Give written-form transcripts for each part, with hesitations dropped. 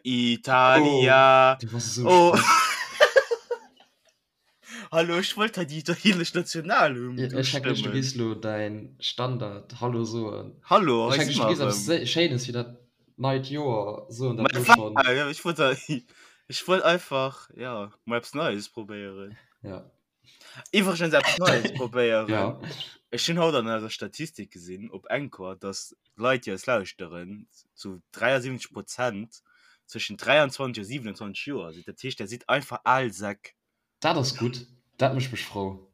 Italia. Oh, du bass esou Oh. schlecht. Hallo, ech wollt hei déi italienesch Nationalhymn Ja, ech denken, du ustëmmen. gees lo däin Standard Hallo soen. Hallo, Ech hei denken, si du mer gees eppes erëm. Schéines fir dat neit Joer soen, Ma dat lo wat? schonn. Ja, ech wollt hei, ech wollt einfach, ja, mol eppes Neies probéieren. Ja. Iwwregens eppes Neies probéieren. Ja. Ech hunn haut an eiser Statistik gesinn op Anchor, dass d'Leit, déi eis lauschteren, zu 73 Prozent zwëschen 23 a 27 Joer sinn. Dat heescht, der sidd einfach al Säck. Dat ass gutt, dat mécht mech frou.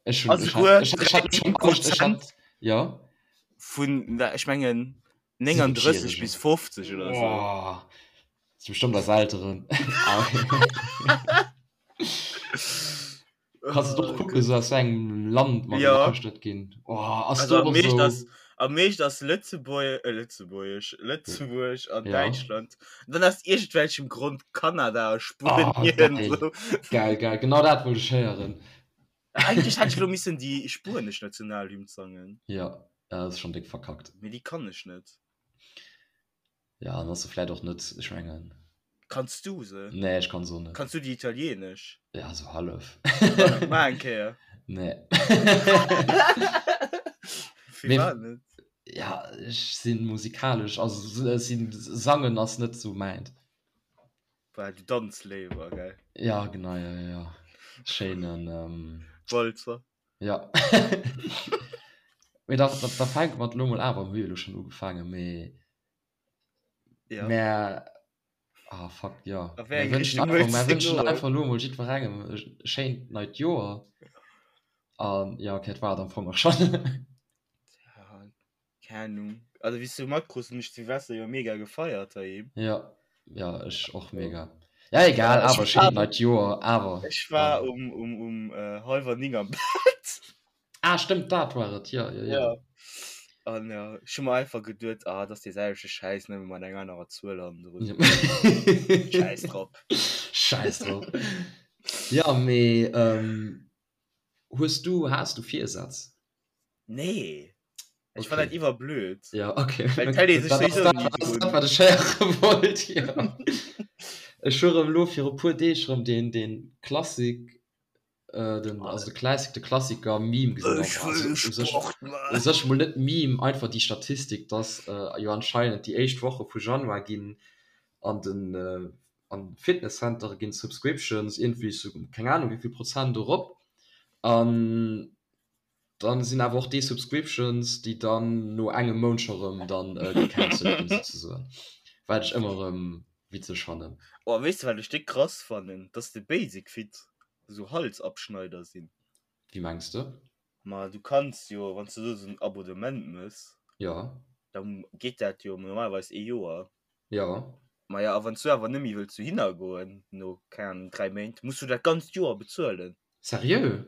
Ech hunn, Also ech hat, souguer ech, ech hat 13 mech schon, ech Prozent hat, ja. vun, ech mengen, 39 bis 7-Jähregen. 50 oder sou. Oh, dat si bestëmmt eis Elteren. Kanns du och kucken, sou aus wéi engem Land mer Ja. gelauschtert ginn. Oh, ass Also do am och meescht sou. ass, am meescht ass Lëtzebuerg, äh, Lëtzebuergesch, Lëtzebuerg an Ja. Däitschland. Dann aus iergendwelchem Grond Kanada a Oh, Spuenien. geil. So. Geil, geil. Genau dat wollt ech héieren. Eigentlech hätt ech elo missen déi spuenesch Nationalhymn sangen. Ja, dat ass schonn déck verkackt. Mee déi kann ech net. Ja, an ass se vläit och net, ech mengen. Kanns du se? Nee, ech kann se och net. Kanns du déi italienesch? Ja, sou hallef. Maach eng Kéier. Nee. Firwat net? Ja, ech si musikalesch, also ech sinn, sangen ass net sou mäint. Well du danz léiwer, gell? Ja, genau, ja, ja, ja. Schéinen, ähm. Walzer. Ja. Mee da, da, da fänke mer elo mol awer, mir hu jo elo schonn ugefaangen, mee Ja. Mä, ah fuck, ja. A wéi Mer eng wënschen Richtung einfach, wëlls mer de wënschen goen? einfach elo mol jiddwerengem e schéint neit Joer. An ja, okay, dat war et am Fong och schonn. Ja, keng Ahnung. Also wéi s du matkruss, hunn ech Silvester jo mega gefeiert heiheem. Ja, ja, ech och mega. Ja, egal, Ech awer war, schéint neit Joer, awer ech war dann. um, um, um äh, hallwer 9 am Bett. Ah, stëmmt, dat war et, jo, jo, jo. Ja. An ja, ech hu mer einfach geduet, ah, dat ass dee selwechte Schäiss, nëmme mat enger anerer Zuel hannendrun. Ja. Schäiss drop. Schäiss drop. Ja, mee ähm, hues du, has du Virsätz? Nee. Ech fann dat Okay. iwwerblöd. Ja, okay. Well d'hält ee sech Dat ass souwisou dat, ni ass dat, drun. wat ech héiere wollt, jo. Ech hu rëm elo viru puer Deeg rëm deen, deen Klassik Äh, den, also de Classic, de Klassiker Meme gesinn. Ech Also, wëll u sech, Sport u man. sech mol net Meme, einfach déi Statistik, dass äh, jo anscheinend déi éischt Woche vu Januar ginn an den äh, an Fitnesscentere ginn Subscriptions iergendwéi sou keng Ahnung wéivill Prozent erop an dann sinn awer och déi Subscriptions, déi dann no engem Mount scho rëm dann äh, gecancelt ginn souzesoen. Wat ech ëmmer rëm witzeg fannen. Oh, weess de wat ech déck krass fannen? Dass de Basic Fit esou Halsabschneider sinn. Wéi mengs de? Ma du kanns jo, wann s de do esou en Abonnement mëss, Jo. da geet dat jo normalerweis ee Joer. Jo. Ma ja, a wann s du awer net méi wëlls dohinner goen, no, keng Ahnung, 3 Méint, muss du dat ganzt Joer bezuelen. Seriö?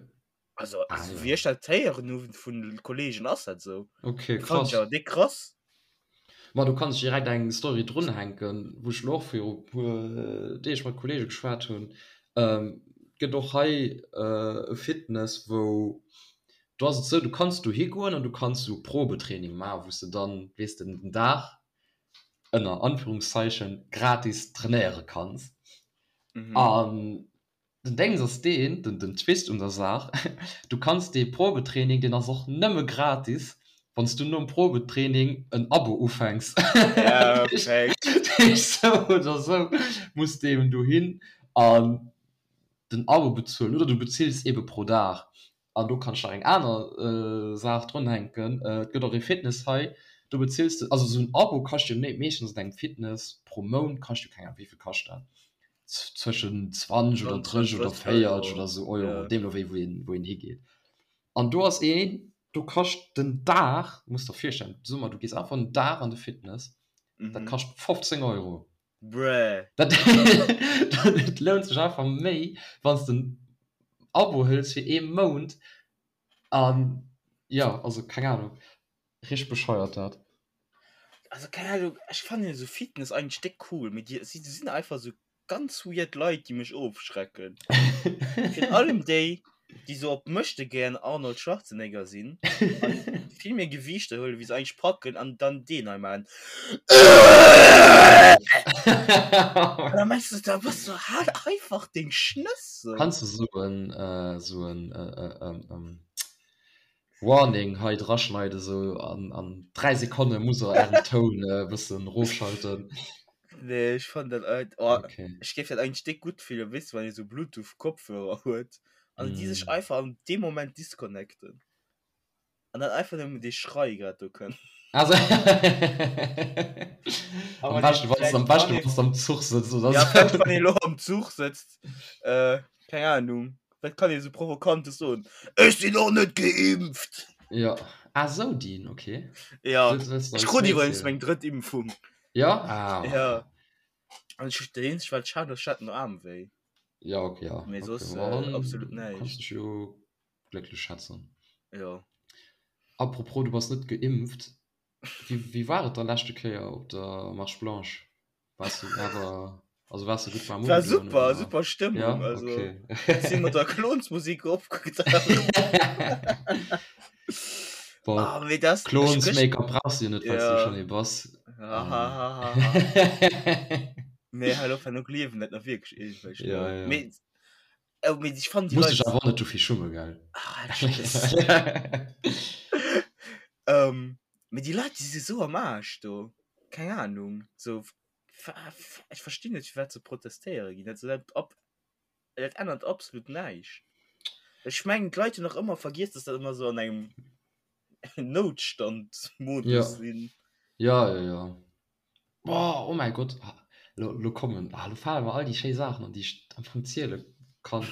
Also, Ah, also ja. wéi ech dat héieren hu vun Kollegen, ass dat esou. Okay, Fand krass. ech awer déck krass. Ma do kann ech direkt eng Story drunhänken, wou ech elo och viru puer Deeg mat Kollege geschwat hunn. Et gëtt och hei e Fitness, wou, do ass et esou, du kanns dohi goen an du kanns esou Probetraining maachen, wou s de dann, weess de, den Dag ënner Anführungszeichen gratis trainéiere kanns. An Den Déngs ass deen, den den Twist un der Saach, du kanns dee Probetraining, deen ass och nëmme gratis, wann s du nom Probetraining en Abo ufänks. Perfekt. Dat heescht, sou oder sou muss de eben dohin an den Abo bezuelen oder du bezills ebe pro Dag. An do kann ech nach eng aner Saach drunhänken, et gëtt och ee Fitness hei, do bezills de, also esou en Abo kascht jo meeschtens an engem Fitness pro Mount kascht jo, keng Ahnung, wéi vill kascht dat, zwëschen 20 oder 30 oder 40 oder esou Euro, deemno wéi wou een, wou een higeet. An do ass een, do kascht den Dag, muss der virstellen, soe mer du gees einfach en Dag an de Fitness, dat kascht 15 Euro. Bruh. Dat et lount sech einfach méi wann s de en Abo hëls fir ee Mount an jo also keng Ahnung richteg bescheuert dat. Also keng Ahnung, ech fannen esou Fitness eigentlech déck cool, mee déi si sinn einfach esou ganz weird Leit déi mech ofschrecken. Virun allem déi. Déi sou op Möchtegern Arnold Schwarzenegger sinn an vill méi Gewiichter huelen, wéi se eigentlech packen an dann deen hei maachen. An da mengs du, da bass du halt einfach deng Schnëss sou. Kanns du sou en sou en Warning hei draschneiden, sou an an 3 Sekonne musst der ären Toun e bëssen rofschalten. Nee, ech fannen dat alt, oh, okay. Ech géif dat eigentlech déck gutt fillen, weess de, wann ee sou Bluetooth-Kopfhörer huet an déi sech einfach an deem Moment disconnecten an dann einfach nëmmen dee Schrei grad do kënnt. Also am beschten, wann am beschten, wann du am Zuch sëtzt oder ja, sou. Wann ee lo am Zuch sëtzt, äh, keng Ahnung, wat kann ee sou Provokantes soen? Ech sinn och net geimpft! Ja, ah sou deen, okay. Ja, ech krut iwwregens meng drëtt Impfung. Ja? Ah. Ja. An ech, dat eenzegt wat ech hat, ech hat den Aarm wéi. Ja, okay, ja. Mee soss, äh, absolut näischt. Kanns dech jo glécklech schätzen. Jo. Apropos, du bass net geimpft. Wéi, wéi war et da leschte Kéier op der Marche Blanche? Waars du awer, also waars du gutt warm War ugedoen, super, oder? super Stëmmung. Ja, also, okay. si mat der Klonsmusik opgedaucht. Boah, Ah, mee das, ech Klons gëscht- Make-up brauchs du jo net, well s du Ja. schonn ee bass. Ha, ha, ha, ha, ha. Nee, hal op, no gliewen dat nach wierklech iergendwelch Ja, Leit. ja. Mee, oh, mee ich fand die Muss dech Leit. awer och net dofir schummen, gell? Ah, tschüss. Ähm, mee déi Leit, déi si sou am Aarsch do. Keng Ahnung. So, ech verstinn net, firwat se protestéiere ginn. Dat, dat, ab, dat ännert absolut näischt. Ech mengen, d'Leit hunn nach ëmmer vergiess, dass dat ëmmer sou an engem Noutstand-Modus Ja. sinn. Ja, ja, ja. Boah, oh mäi Gott, ah, lo, lo kommen, ah, lo fale mer all déi schéi Saachen an, déi ech am Fong ziele kann.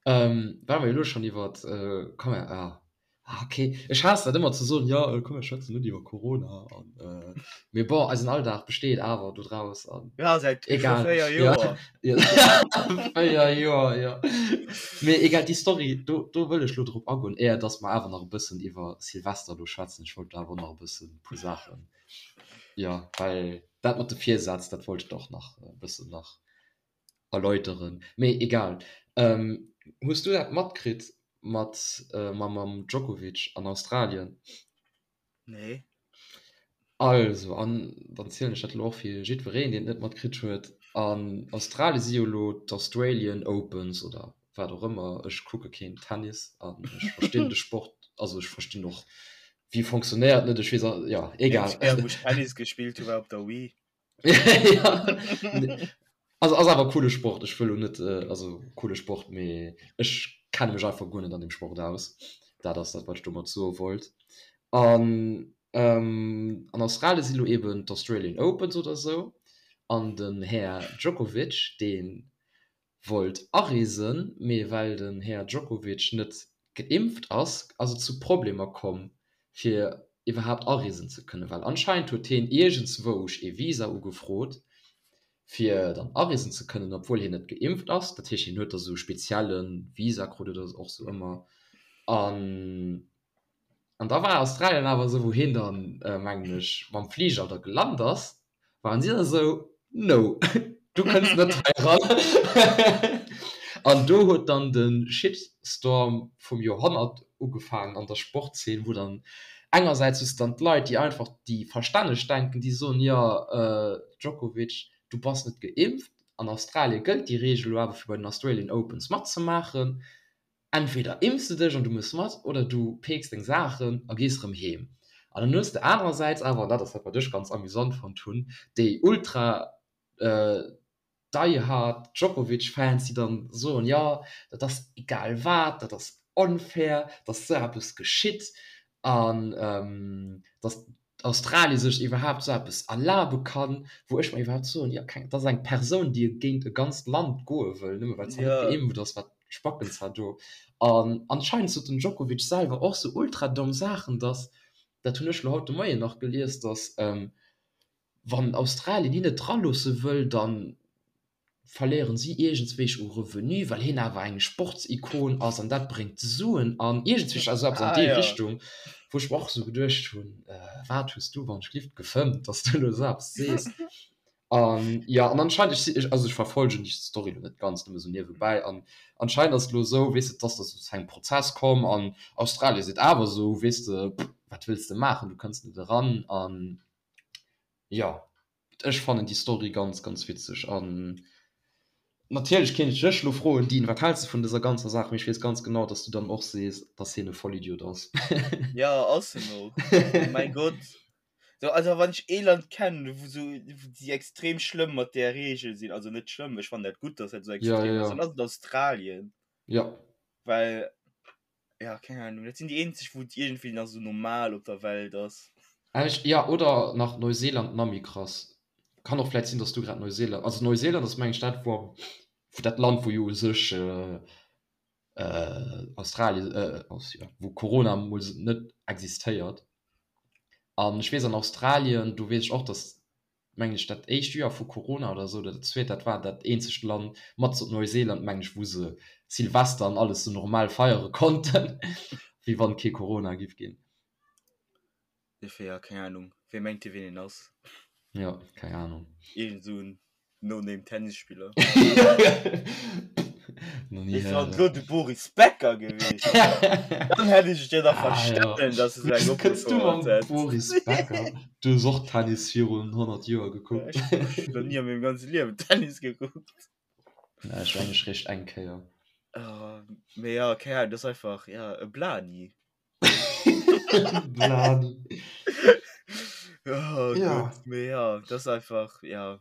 Ähm, well mer jo elo schonn iwwert, äh, komm mer, ah, ah, okay, ech haass dat ëmmer ze soen, jo, komm mer schwätzen net iwwer Corona an, äh, mee bon, eisen Alldag besteet awer dodraus an Ja, säit egal, 4 ja, Joer. ja, 4 Joer, jo. Mee egal, déi Story, do, do wëll ech lo drop agoen, éier dass mer awer nach e bëssen iwwer Silvester do schwätzen. Ech wollt awer nach e bëssen e puer Saachen Jo, well dat mat de Virsätz, dat wollt ech der och nach e bëssen nach erläuteren. Mee egal. Hues du dat matkritt mat mam Djokovic an Australien? Nee. Also, an dann zielen ech dat elo och fir jiddwereen, deen et net matkritt huet, An Australien si jo elo d'Australian Opens oder wat och ëmmer. Ech kucke keen Tennis an ech verstinn de Sport, also ech verstinn och Wéi fonctionnéiert net? Ech weess a ja, egal. Eenzeg Kéier wou ech Tennis gespillt hu war op der Wii. Ja, also ass awer coole Sport. Ech wëll lo net, also coole Sport, mee ech kenne mech einfach guer net an deem Sport aus. Dat ass dat wat ech domat soe wollt. An an Australien si lo eben d'Australian Opens oder sou an den Här Djokovic, dee wollt areesen, mee well den Här Djokovic net geimpft ass, ass et zu Problemer komm fir iwwerhaapt areesen ze kënnen, well anscheinend huet heen iergendzwousch ee Visa ugefrot fir dann areesen ze kënnen, obwuel hien net geimpft ass. Dat heescht hien huet da sou spezielle Visa krut oder och sou ëmmer an An da war Australien awer esou, wou hien dann, mengen ech, mam Fliger da gelant ass, waren si da esou, No, du kënns net hei eran. An do huet dann de Shitstorm vum Joerhonnert ugefaangen an der Sportzeen, wou dann engersäits hues de dann d'Leit, déi einfach, déi verstänneg denken, déi soen, jo, Djokovic, du bass net geimpft, an Australie gëllt déi Reegel elo awer fir bei den Australian Opens matzemaachen. Entweder impfs de dech an du mëss mat oder du peeks deng Saachen a gees rëm heem. An dann hues de anerersäits awer, an dat ass dat wat ech ganz amüsant fonnt hunn, déi ultra die-hard Djokovic-Fans, déi dann soen, jo dat ass egal wat, dat ass onfair, datt esou eppes geschitt an datt Australie sech iwwerhaapt esou eppes erlabe kann, wou ech mer iwwerhaapt soen, jo keng, dat ass eng Persoun, déi géint e ganzt Land goe wëll, nëmme well se net geimpft ass, wat spacken zwar do. An anscheinend sot den Djokovic selwer och sou ultra domm Saachen, dass, dat hunn ech elo haut de Moien nach gelies, dass wann Australien hien net draloosse wëll, dann verléieren si iergendswéich u Revenu, well hien awer eng Sportsikon ass an dat bréngt Suen an iergendswéich, also eppes an déi Richtung, wou ech mer och esou geduecht hunn, wat hues du wann ech glift gefëmmt, dass du elo esou eppes sees. An ja, an anscheinend, ech si, also ech verfolgen déi Story lo net ganz, nëmme sou niewebäi, an anscheinend ass et lo esou, weess de, dass dat zu engem Prozess komm an Australien seet awer esou, weess de, wat wëlls de maachen, du kënns net eran. An jo, ech fannen déi Story ganz, ganz witzeg. An natierlech kéint ech dech lo froen, Dean, wat häls de vun dëser ganzer Saach? Mee ech weess ganz genau, dass du dann och sees, dass hien e Vollidiot ass. Ja, ass en och. Mäi Gott. So, also wann ech ee Land kennen, wou so, wou déi extrem schlëmm mat där Regel sinn, also net schlëmm, ech fannen dat gutt, dass dat sou Ja, extrem ja, ass, dann ja. ass et Australien. Ja. Well, ja, keng Ahnung, dat sinn déi eenzeg, wou et iergendwéi nach sou normal op der Welt ass. Ech, ja, oder nach Neuseeland, nach méi krass. Kann och vläit sinn, dass du grad Neuseeland, also Neuseeland ass meng ech dat, wou am, wou dat Land, wou jo u sech Australien, jo, wou Corona mol net existéiert. An ech weess an Australien, do weess ech och, datt, mengen ech, dat éischt Joer vu Corona oder esou, oder dat zweet, dat war dat eenzegt Land mat Neuseeland, mengen ech, wou se Silvester an alles esou normal feiere konnten, wéi wann kee Corona giff ginn. Dofir, ja, keng Ahnung. Wee mengt dee, wien een ass? Jo, keng Ahnung. Iergend esou en No-Name Tennisspiller. Noch nie Wéi wann héieren. lo de Boris Becker gewiescht wär. Dann hätt ech et jo nach Ah, ja. verstanen, dass e sou eng Wéi kënns du opgefouert mam hätt. Boris Becker? Du hues och Tennis virun 100 Joer gekuckt. Ech hunn nach ni a mengem ganze Liewen Tennis gekuckt. Ja, ech mengen ech réischt eng Kéier. Oh, mee ja, keng Ahnung, dat ass einfach, ja, e Blani. Blani. Oh Ja. Gott, mee ja, dat ass einfach, ja.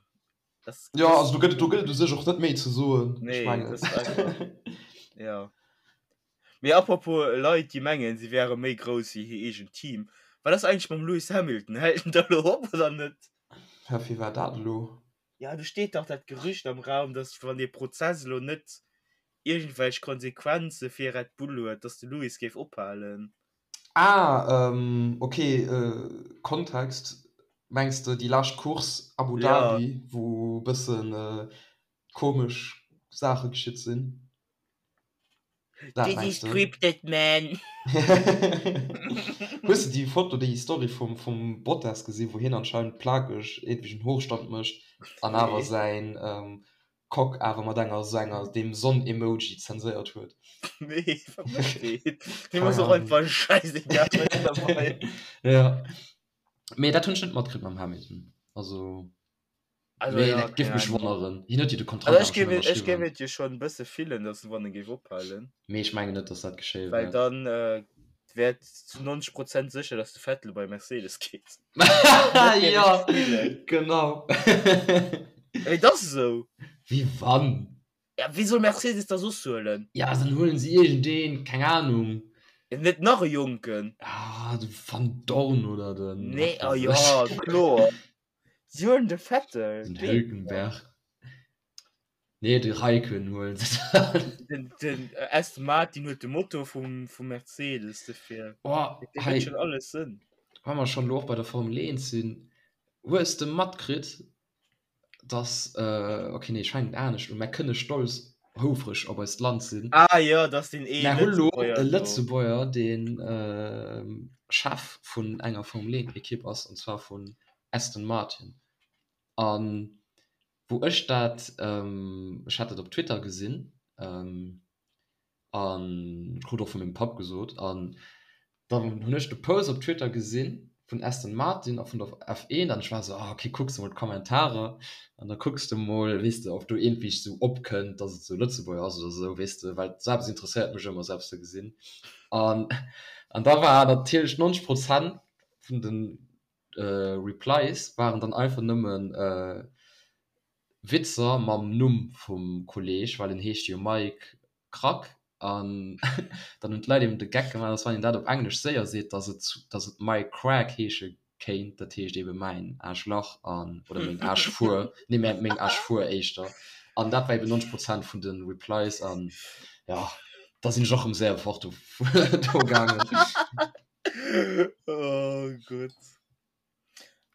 Das, Ja, das, also do gëtt et do gëtt et u sech och net méi ze soen. Ech nee, mengen. das ist einfach, ja. Mee apropos Leit, déi mengen, si wäre méi grouss wéi hir eegent Team. Wat ass eigentlech mam Lewis Hamilton? Hält en da lo op oder net? Hä, wéi war dat elo? Ja, do steet dach dat Gerücht am Raum, dass wann dee Prozess elo net iergendwelch Konsequenze fir Red Bull huet, dass de Lewis géif ophalen. Ah, ok, Kontext, Mengs de déi lescht Course Abu Ja. Dhabi, wou e bëssen komesch Saache geschitt sinn? Dat This mengs is de? scripted, man! Hues de déi Foto, déi Story vum, vum Bottas gesinn, wou hien anscheinend plakeg iergendwéi en Hochstand mécht an awer Nee. säin Cock awer mat enger esou enger deem Sonn-Emoji zenséiert huet? Nee, wat mécht deen? Deem Keng ass och Ahnung. einfach schäisegal mëttlerweil. Ja. Mee dat hunn ech net matkritt mam Hamilton. Also. Also Mee ja, dat géif keng mech Ahnung. wonneren. Hien huet jo de Kontrakt Also awer ech géif schonn et, ech géif ënnerschriwwen. et jo schonn e bësse fillen, datt wann e géif ophalen. Mee ech mengen net, datt dat geschéie Well wäert. dann äh, wär et zu 90 Prozent sécher, datt de Vettel bei Mercedes geet. Dat géif ech Ja, fillen. genau. Mee et ass esou. Wéi wann? Ja, wie soll Mercedes da soss huelen? Ja, dann huelen se iergendeen, keng Ahnung. Ja, net nach e Jonken. Ah, de Vandoorne oder den, Nee, wat ah weess ja, ech. kloer. Si huelen de Vettel. Den Deen. Hülkenberg. Nee, de Raikkonen huelen se dann. Den, den Aston Martin huet de Motor vum, vum Mercedes dofir. Oh, Dee hei, huet schon alles Sënn. wa mer schonn elo och bei der Formel 1 sinn, hues de matkritt, dass, okay, nee, ech fänken anescht un, Mär kënne stolz, houfreg op eist Land sinn. Ah jo, dass deen ee Mär hu lo Lëtzebuerger e do. Lëtzebuerger, deen Chef vun enger Formel 1 Ekipp ass, an zwar vun Aston Martin. A wou ech dat, ech hat dat op Twitter gesinn, an krut och vu mengem Papp gesot an dann hunn ech de Post op Twitter gesinn vun Aston Martin a vun der F1 an ech war esou, ah ok kucks de mol d'Kommentarer an da kucks de mol weess de ob do iergendwéi esou opkënnt dass et esou Lëtzebuerger ass oder esou weess de well esou eppes interesséiert mech ëmmer esou eppes ze gesinn an an da war natierlech 90 Prozent vun de Replies waren dann einfach nëmmen Witzer mam Numm vum Kolleg, well en heescht jo Mike Krack an dann hunn d'Leit eben de Geck gemaach, dass wann een dat op Englesch séier seet, dass et dass et Mike Crack heesche kéint, dat heescht eben mäin Aarschlach an oder meng Aarschfuer, nee mä meng Aarschfuer éischter an dat war eben 90 Prozent vun de Replies an jo, da sinn ech och rëm séier fort do do gaangen. Oh Gott.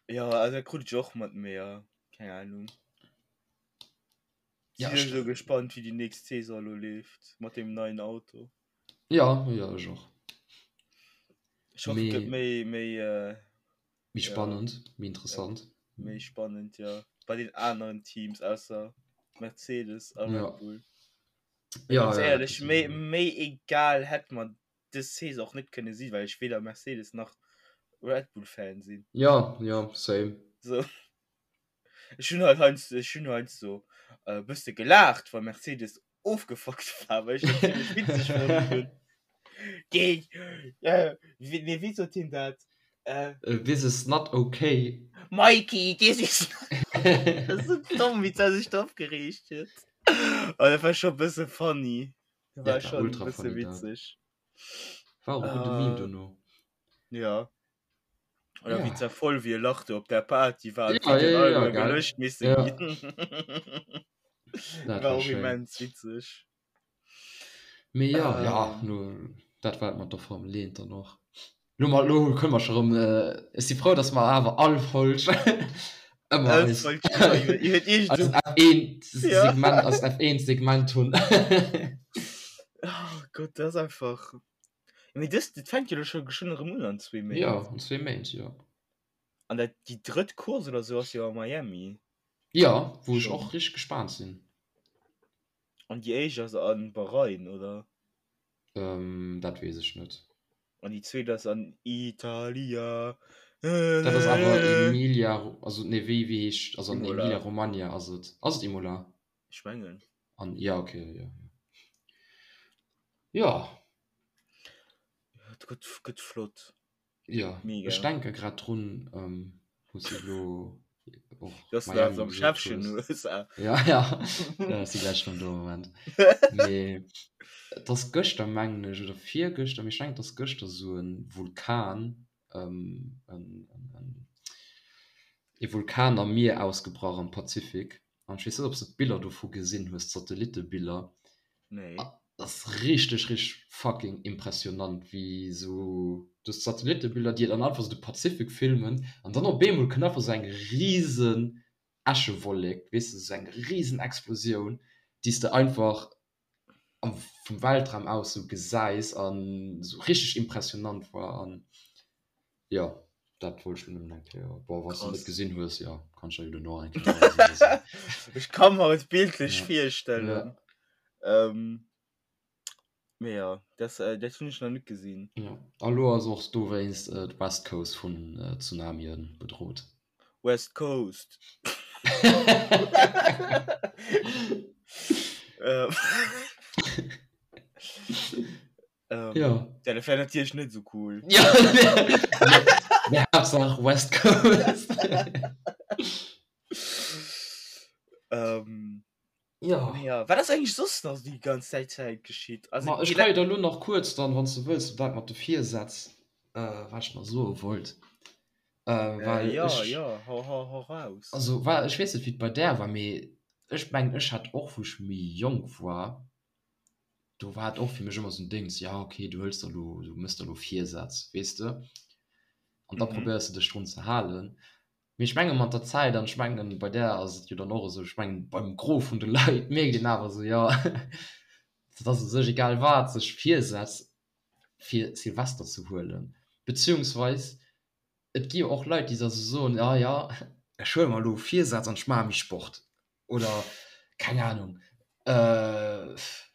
Jo, also dat krut ech och mat, mee jo, keng Ahnung. Ja, Sinn ech, sou gespannt wéi déi nächst Saison elo leeft mat deem neien Auto. ja, ja, ech och. Ech hoffe et gëtt Mee méi méi äh, méi ja, spannend, méi ja, interessant. méi spannend, ja. bei den aneren Teams ausser Mercedes a Red Bull. Ja, Ganz ja, éierlech, méi, méi egal hätt mer dës Saison och net kënne sinn, well ech weder Mercedes nach Red Bull Fan sinn. Ja, ja, same. So. Ech hunn halt heiansdo, ech hunn heiansdo e bësse gelaacht, wa Mercedes ofgefuckt war, well ech dat zimmlech witzeg fonnt hunn. Géi, äh, wéi, nee, wéi sot hien dat? Äh, This is not okay. Mikey, this is not. Dat ass sou domm, wéi d'Sau sech do opgereegt huet. Oh, dat war scho e bësse funny. Dat war Dat war schon e ultra bësse funny, dat. witzeg. War och e gudde Meme Äh, dono. ja. Oder wéi Ja. zervoll wéi e Lach do op der Party war an Ja, d'Videoen ja, ja, alleguer gell? gelöscht misse Ja. ginn. Dat War war och schéin. immens witzeg. Mee ja, ja, Ähm. lo, dat war et mat der Formel 1 dann och. Lo, ma, lo kënne mer scho rëm, ech si frou, dass mer awer all Folg ëmmer All eis, Folg iwwer, iwwer, iwwer eist iergend F1 Ja. Segment, eist F1 Segment hunn. Oh Gott, dat ass einfach. Mee dës, dat fänkt jo elo scho geschwënn erëm un an zwee Ja, Méint. an zwee Méint, jo. An dat, déi drëtt Course oder sou ass jo a Miami. Ja, wou ech Schonn. och richteg gespaant sinn. An déi éischt ass a Bahrain, oder? Ähm, dat weess ech net. An déi zweet ass an Italia. Dat ass awer Emilia, also nee, wéi, wéi heescht, also an Imola. Emilia Romagna ass et. Ass et Imola? Ech mengen. An, ja, okay, ja, ja. Ja. Ja, et gëtt, gëtt flott. Ja, Mega. ech denke grad drun, wou s de elo och Dass du Miami am gesot Schäffchen hues. USA. Ja, ja, ja, ech si gläich rëm do, Moment. Mee et ass gëschter, mengen ech, oder virgëschter, mee ech mengen et ass gëschter esou e Vulkan, en, en, en, e Vulkan am Mier ausgebrach am Pazifik. An ech weess net, ob s de d'Biller dovu gesinn hues, d'Satellitebiller. Nee. Dat ass richteg, richteg fucking impressionant, wéi esou du hues d'Satellitebiller, déi dann einfach esou de Pazifik filmen an dann op eemol kënnt einfach esou eng risen Äschewollek, weess de, esou eng risen Explosioun, déi s de einfach am vum Weltraum aus esou gesäis an esou richteg impressionant war an jo dat wollt ech lo nëmmen eng Kéier, bon wann s de net gesinn hues, jo kann ech der jo duerno eng Kéier weisen oder sou. Ech ka mer et bildlech virstellen. Mee jo, dat dat hunn ech nach net gesinn. Jo, a lo ass och dowéinst d'West Coast vun Tsunamien bedrot. West Coast. Ähm, ja. Ja, dat wär natierlech net so cool. Ja, nee, Haaptsaach West Coast. ähm, ja. Ja, wat ass eigentlich soss nach déi ganz Zäit Zäit geschitt? Also, Ma, ech kann jo da lo nach kuerz dann, wann s du wëlls, dat mat de Virsätz, äh, wat ech nach soe wollt. Äh, well äh, ja, ech, ja, hau, hau, hau raus. Also, well, ech weess net, wéi et bei där war, mee ech mengen, ech hat och, wou ech méi jonk war, do war et och fir mech ëmmer esou en Déngs, ja okay, du hëls der elo, du mëss der elo Virsätz, weess de, an da Mhm. probéiers de dech drun ze halen. Mee ech menge mat der Zäit, an ech mengen bei där ass et jo dann och esou, ech mengen beim Gros vun de Leit mierkt een awer esou, jo, et ass u sech egal wat, sech Virsätz fir Silvester ze huelen, beziehungsweis et gi jo och Leit, déi da sou soen, ah ja, ech huele mer elo Virsätz an ech maache méi Sport oder keng Anung,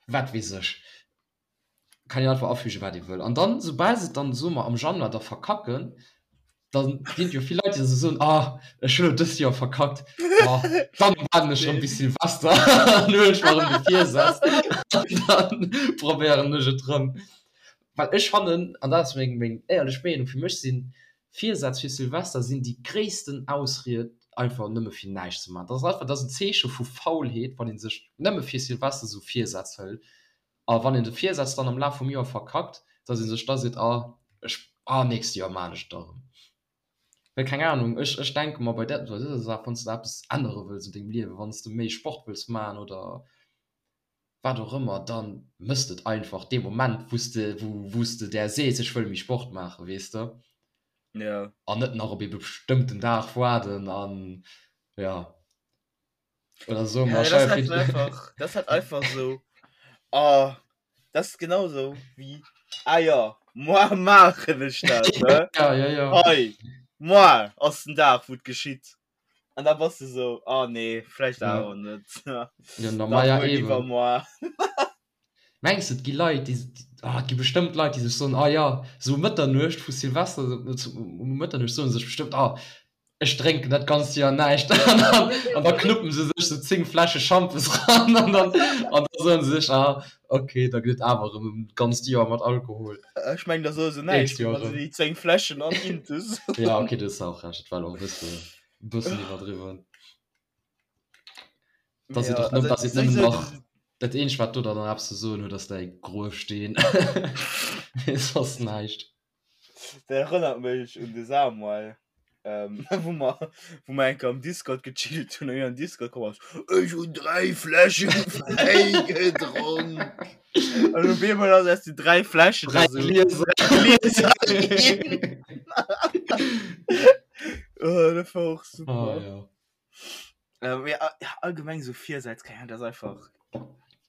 wat weess ech. Kann een einfach afügen, wat ee wëll. An dann, soubal se et dann, soe mer, am Januar da verkacken, da ginn et jo vill Leit, déi da sou soen, ah, ech hunn elo dëst Joer verkackt, ma dann waarden ech erëm bis Silvester an huelen ech mer erëm de Virsaz an dann probéieren ech et erëm. Well ech fannen, an dat ass meng meng éierlech Meenung, fir mech sinn Virsätz fir Silvester sinn déi gréissten Ausried einfach nëmme fir näischt ze maachen. Dat ass einfach, dat ass en Zeeche vu Faulheet, wann ee sech nëmme fir Silvester esou Virsätz hëlt. A wann een de Virsaz dann am Laf vum Joer verkackt, datt ee sech da seet, ah ech, ah nächst Joer maan ech et da erëm. Well keng Ahnung, ech ech denke mer bei där bei dëser Saach, wann s de eppes ännere wëlls an dengem Liewen, wann s de méi Sport wëlls maachen oder wat och ëmmer, da mëss de et einfach dee Moment, wou s de, wou s de där sees, ech wëll méi Sport maachen, weess de? Ja. An net nach op ee bestëmmten Dag waarden an ja. Oder soe Ja, mer, dat stell ass dir halt vir, einfach, dat ass halt einfach sou, oh, dat ass genau sou wéi, ah jo, moar maachen ech dat, ne? Ja, ja, ja. Hei, moar ass den Dag, wou et geschitt. An da bass du sou, oh nee, vläicht awer net. Ja, na, ma ja, eben. Mengs de, et gi Leit, déi, ah, et gi bestëmmt Leit, déi sech soen, ah ja, sou Mëtternuecht vu Silvester, um Mëtternuecht soen se sech bestëmmt, ah, ech drénken dat ganzt Joer näischt. An dann, an da knuppen se sech sou 10 Fläsche Schampes ran an dann, an da soen se sech, ah, okay, da gëtt et awer erëm e ganzt Joer mat Alkohol. Ech mengen, da soe se näischt, Nächst Joer wa se erëm. déi 10 Fläschen an intus hunn. Ja, okay, du hues och Recht, et war elo och e bësse, e bëssen iwwerdriwwen. Dass et Ja, och nëmmen, also dass et nëmmen souwisou nach dat eenzegt wat do dann nach eppes ze soen huet ass däi Gruefsteen. Mee soss näischt. Dat erënnert mech un de Samuel, ähm, wou mer, wou mer eng Kéier am Discord gechillt hunn an hien an Discord komm ass, Ech hunn 3 Fläsche Wäi gedronk. An op eemol ass aus den 3 Fläschen 3 da sou Glieser. Glieser ginn. Oh, dat war och super. Oh, ja. Ähm, ja, ja, allgemeng so Virsätz, keine Ahnung, das ist einfach.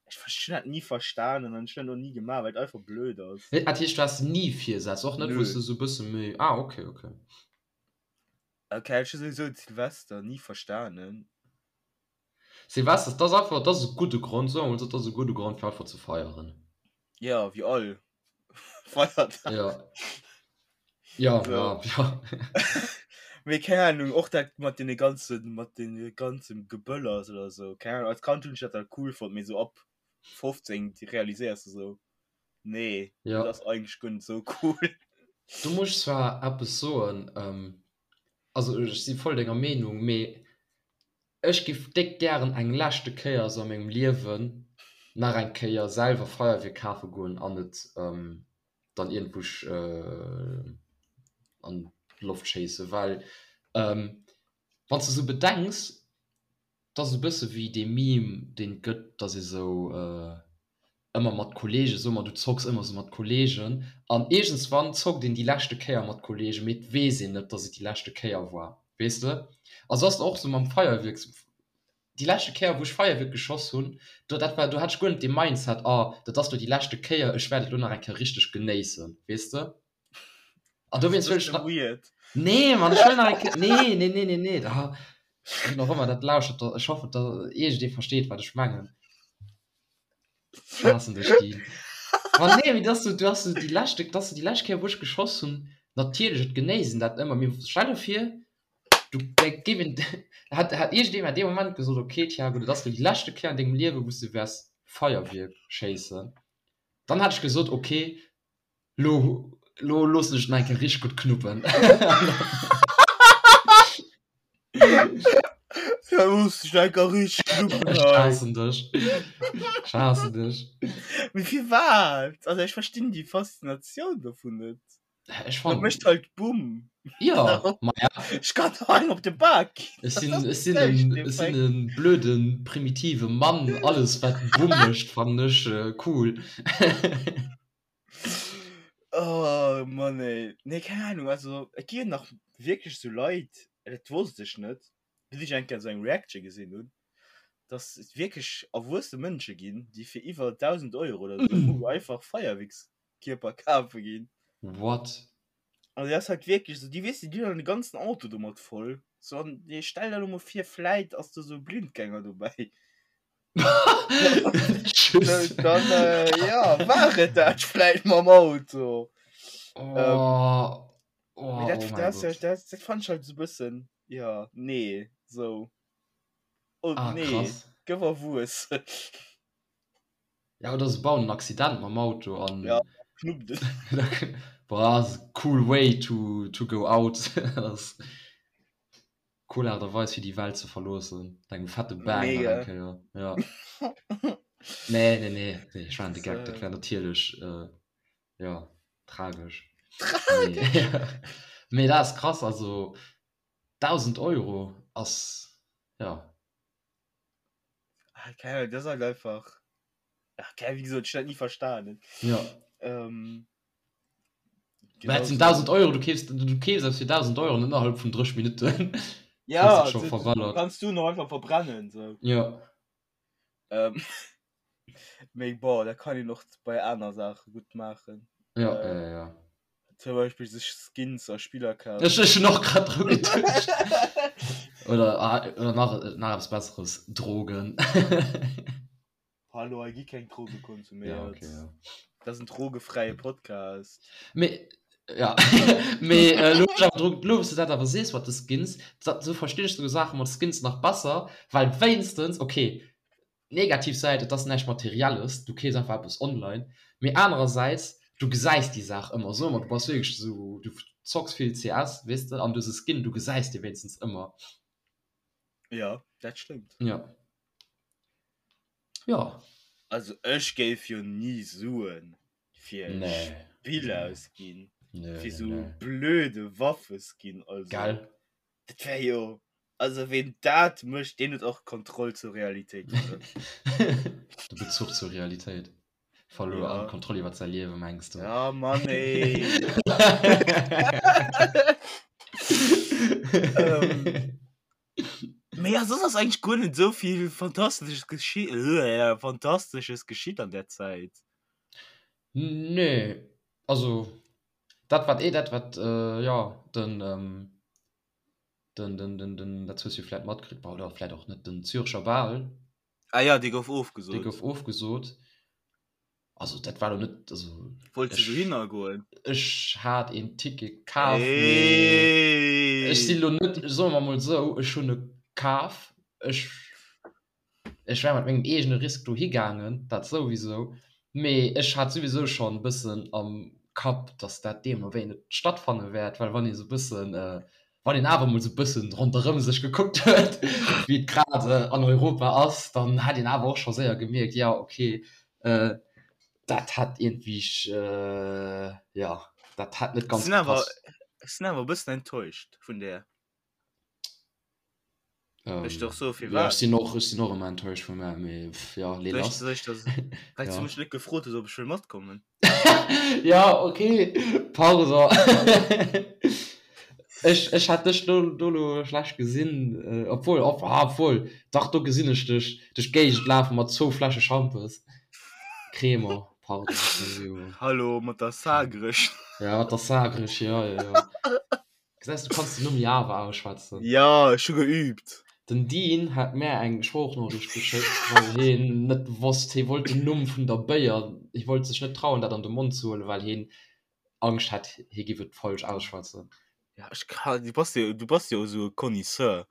Ich verstehe das nie verstanden und ich habe das noch nie gemacht, weil es einfach blöd ist. Nee, dat heescht, du has ni Virsätz, och net, wou Nö. du so e bësse méi. Ah, okay, okay. Okay, ich habe sowieso Silvester nie verstanden. Silvester, dat ass einfach, dat ass e gudde Grond, soe mer mol esou, dat ass e gudde Grond, fir einfach ze feieren. Ja, wie all Feiertag. Ja. Ja, So. ja, ja. Mee keng Ahnung, och dat mat deene ganzen, mat deene ganzen Geböllers oder so, keng Ahnung, als Kand hunn ech dat halt cool fonnt, mee so ab 15 realiséiers du so, nee, Ja. dat ass eigentlech guer net sou cool. Do muss ech zwar eppes soen, ähm, also ech si voll denger Meenung, mee Ech giff déck gären eng leschte Kéier sou a mengem Liewen nach eng Kéier selwer Feierwierk kafe goen an et dann iergendwou an d'Loft schéissen, well wanns de sou bedenks, 't ass e bësse wéi dee Meme deen et gëtt, dass ee sou ëmmer mat Kollegen, soe mer du zocks ëmmer sou mat Kollegen an iergendswann zockt een déi leschte Kéier mat Kollegen, mee et weess een net, dass et déi leschte Kéier war, weess de? A sou ass et och sou mam Feierwierk, déi leschte Kéier wou ech Feierwierk geschoss hunn, do dat war, do hat ech guer net dee Mindset, oh dat ass lo déi leschte Kéier, ech wäert et lo nach eng Kéier richteg genéissen, weess de? An dowéinst wëll ech nach. Weird. Nee, Mann, ech wëll nach eng Kéier. Nee, nee, nee, nee, nee. Da, wien och ëmmer dat lauschtert, da, ech hoffen, da iergendee versteet, wat ech mengen. Ech haassen dech, Dean. Ma nee, mee dass du, du has du déi leschte, dass du déi lescht Kéier, wou ech geschoss hunn, natierlech, et genéisst een dat ëmmer, mee stell der vir, du, da géif een, hätt, hätt iergendee mer dee Moment gesot, okay, Thiago, dat ass lo déi leschte Kéier an dengem Liewen, wou s du wäers Feierwierk schéissen, dann hätt ech gesot, okay, Lo, lo loossen ech den eng Kéier richteg gutt knuppen. Ja, looss dech eng Kéier richteg knuppen Ech hei. haassen dech. Ech haassen dech. Mee firwat? Also ech verstinn déi Faszinatioun dovun net. Ech Dat fannen. mécht halt Bumm. Ja, ma ja. Ech kann doch engem op de Bak ginn. Ech Dat sinn, ass ech sinn näischt en, ech sinn Effekt. en blöden, primitive Mann. Alles wat Bumm mécht, fannen ech cool. Oh Mann ey. Nee, keng Ahnung, also et gi jo nach wierklech sou Leit, dat wosst ech net, bis ech eng Kéier sou eng Reaction gesinn hunn, dass et wierklech erwuesse Mënsche ginn, déi fir iwwer 1.000 Euro oder sou einfach Feierwierkskierper kafe ginn. What? Also dat ass halt wierklech sou, déi weess de, déi hunn dann de ganzen Auto domat voll. So an stell der elo mol vir, vläit ass do sou e Blindgänger dobäi. Tschüss. Dann äh, ja, war et dat vläicht mam Auto. Oh, Ähm, oh, Mee dat, oh mein das, Gott. das, das fand ich halt so e bëssen, ja, nee, so. Oh, Ah, nee, krass. gëff erwuessen. Ja, oder se bauen en Accident mam Auto an. Ja, knuppt et. Boah, das ist a cool way to, to go out. Das Cool Aart a Weis fir déi Welt ze verloossen, mat engem fette Bang nach eng Kéier. Ja. Nee, nee, nee, nee, ech war de Geck, dat wär natierlech äh, ja, tragesch. Tragesch? Nee. Mee dat ass krass, also 1.000 Euro ass, ja. Ah, keine Ahnung, das ist halt einfach. Ach, keine, wie gesagt, ich hab das nie verstanden. Ja. Ähm, Mä et sinn 1.000 Euro, du keefs, du keefs eppes fir 1.000 Euro an innerhalb vun 30 Minutten Ja, hues et scho du, du verballert. kannst du noch einfach verbrennen. So. Ja. Ähm, mee boah, da kann een och bei aner Saache gutt maachen. Ja, Äh, ja, ja. Zum Beispiel sech Skins a Spiller kafen. Ech, ech hunn och grad dru geduecht. Oder, ah, oder nach, nach eppes Besseres, Drogen. Hallo, hei gi keng Droge konsuméiert. Ja, okay, ja. Dat ass en drogefräie Podcast. Mee, ja, mee äh, lo, lo, lo, wous du dat awer sees mat de Skins, dat, sou verstinn ech sou Saache mat Skins nach besser, well wéinstens, okay, negativ Säit, et ass näischt Materielles, du keefs einfach eppes online, mee anerersäits, du gesäis déi Saach ëmmer, soe mer, du bass wierklech esou, du zocks vill CS, weess de, an du hues e Skin, du gesäis dee wéinstens ëmmer. Ja, dat stëmmt. Ja. Ja. Also ech géif jo ni Suen fir e Nee. Spill Nee. ausginn, Nee, fir nee, sou nee. blöde Waffeskin, also Gell? dat wär jo Also ween dat mécht, deen huet och d'Kontroll zur Realitéit verluer. De Bezuch zur Realitéit verluer an Ja. d'Kontroll iwwer säi Liewe, mengs du? Ja, Mann ey. Ähm, mee ja, soss ass eigentlech guer net esou vill Fantastesches geschi Fantastesches geschitt an där Zäit. Nee, also dat wat, dat wat, jo, den. Den, den, den, den, dat hues du vläit matkritt, bah, oder vläit och net, den Zürcher Bal. Ah ja, dee gouf ofgesot. Dee gouf ofgesot. Also dat war lo net, also. Wollts du dohinner goen? Ech hat een Ticket kaf, mee ech si lo net, soe mer mol esou, ech hunn e kaf, ech. Ech wär mat mengem eegene Risk dohi gaangen, dat souwisou, mee ech hat souwisou schonn e bëssen am Kapp, datt dat deemno wéi net stattfanne wäert, well wann ee sou e bëssen, wann een awer emol sou e bëssen ronderëm sech gekuckt huet, wéi et grad an Europa ass, dann hat een awer och scho séier gemierkt, jo okay, dat hat iergendwéi, jo, dat hat net ganz gepasst. Ech sinn awer e bëssen enttäuscht vun där. Ähm, Ech doch so fir ja, ech sinn och, ech sinn och ëmmer enttäuscht vun mär, mee pff, ja, lee lass. Soll ech das, well du Ja. mech net gefrot hues, ob ech wëll matkommen. Ja, okay, pardon. Ech, ech hat dech do, do lo schlecht gesinn, äh, obwohl, ob, ah, obwohl, dach, do gesinn ech dech duerch d'Géigend lafe mat zwou Fläsche Schampes. Crémant, pardon, ech si jo. Hallo, mat der Sagrech. Ja, mat der Sagrech, ja, ja, ja. Gesäis, du kanns den Numm jo awer ausschwätzen. Ja, ech hu geübt. Den Dean hat mär eng Sproochnoriicht geschéckt, well heen net wosst, hee wollt den Numm vun der Béier, hee wollt sech net trauen dat an de Mond ze huelen, well heen Angscht hat, hee giff et falsch ausschwätzen. Ja, ech ka, du bass jo, du bass jo esou e Connaisseur.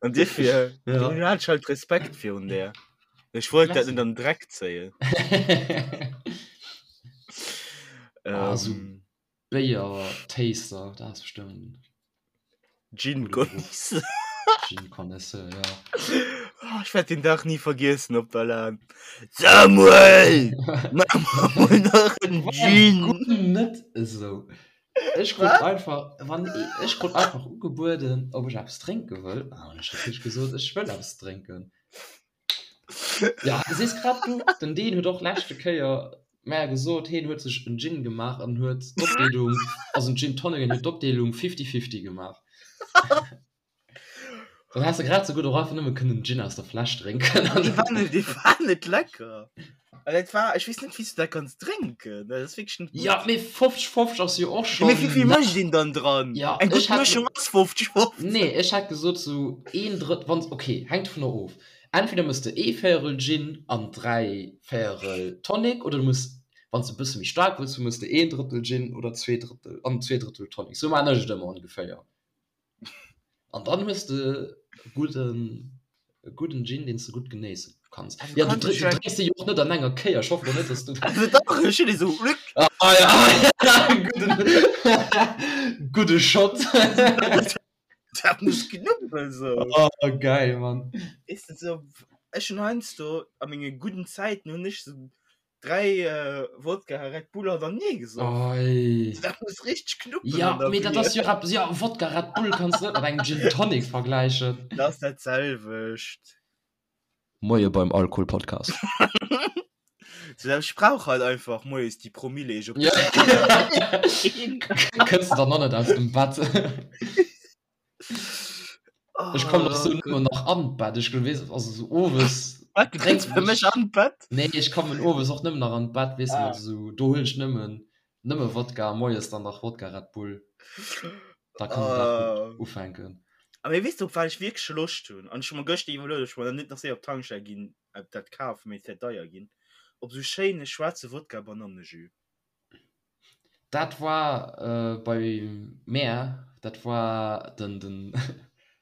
An dofir, Ja. du hat ech halt Respekt virun där. Ech wollt dat Merci. net an den Dreck zéien. Ah, esou Ähm. Béier-Taster, dat ass bestëmmt Gin Connaisseur. Gin Connaisseur, ja. Oh, ech wäert den Dag ni vergiessen op der LAN. Samuel! Mach mer mol nach en Gin! Guck net esou. Ech krut einfach, wann ech krut einfach ugebueden, ob ech eppes drénke wëll. An ech hunn natierlech gesot, ech wëll eppes drénken. Ja, sees grad du, den Dean huet och leschte Kéier mär gesot, heen huet sech en Gin gemaach an huet d'Opdeelung, also en Gin Tonic, an huet d'Opdeelung fifty-fifty gemaach. Dann häss de grad esou gutt och einfach nëmme kënnen Gin aus der Fläsch drénken. Dee war net, dee war net lecker. Also dat war, ech weess net, wéi s du dat kanns drénken. Dat ass wierklech net gutt. Ja, mee 50, 50 ass jo och Ja, mee schonn. wéi vill mécht een dann dran? Ja, Eng ech gutt hätt. Mëschung ass 50, 50. Nee, ech hätt gesot sou een Drëtt, wann, okay, hänkt dovunner of. Entweder mëss de ee Véierel Gin an 3 Véierel Tonic oder du mëss, wann s de e bësse méi staark wëlls hunn, mëss de een Drëttel Gin oder zwee Drëttel an zwee Drëttel Tonic. Sou maan ech et ëmmer ongeféier. An dann hues de e gudden, e gudden Gin, deen s de gutt genéisse kanns. Also Ja, du kanns drénks, du du drénks dee jo och net an enger Kéier. Ech hoffen och net, dass du. Also dach, ech hunn dee sou. Ah ja, gudden, gudde Shot. Dat muss knuppel sou. Oh, geil, Mann. Weess de, sou, ech hunn heiansdo a menge gudden Zäiten hunn ech sou 3 Wodka Red Bull hannertenee gesoff. Oi. Dat muss richteg knuppelen Ja, an der mee dat Bier. ass jo eppes, ja, Wodka Red Bull kanns de net mat engem Gin Tonic vergläichen. Dat ass dat selwecht. Moie beim Alkoholpodcast. So, ech brauch halt einfach moies déi Promille, ier ech op Ja. Kënns de dann nach net aus dem Bett? Ech kommen och sou nëmmen nach an d'Bett. Ech weess, also sou owes Wat, du kënns drénken bei mech ech. an d'Bett? Nee, ech kommen owes och nëmmen nach an d'Bett, weess de, Ah. mat sou, do huelen ech nëmmen, nëmme Wodka, moies dann nach Wodka Red Bull. Da kann den Dag gutt Ah. ufänken. A mee weess de op wat ech wierklech Loscht hunn? An ech hu mer gëschter iwwerluet, ob ech mer dann net nach séier op d'Tankstell ginn a dat kafen, mee et wäert deier ginn, op esou schéine schwaarze Wodka-Banannejus. Dat war bei mär, dat war den, den.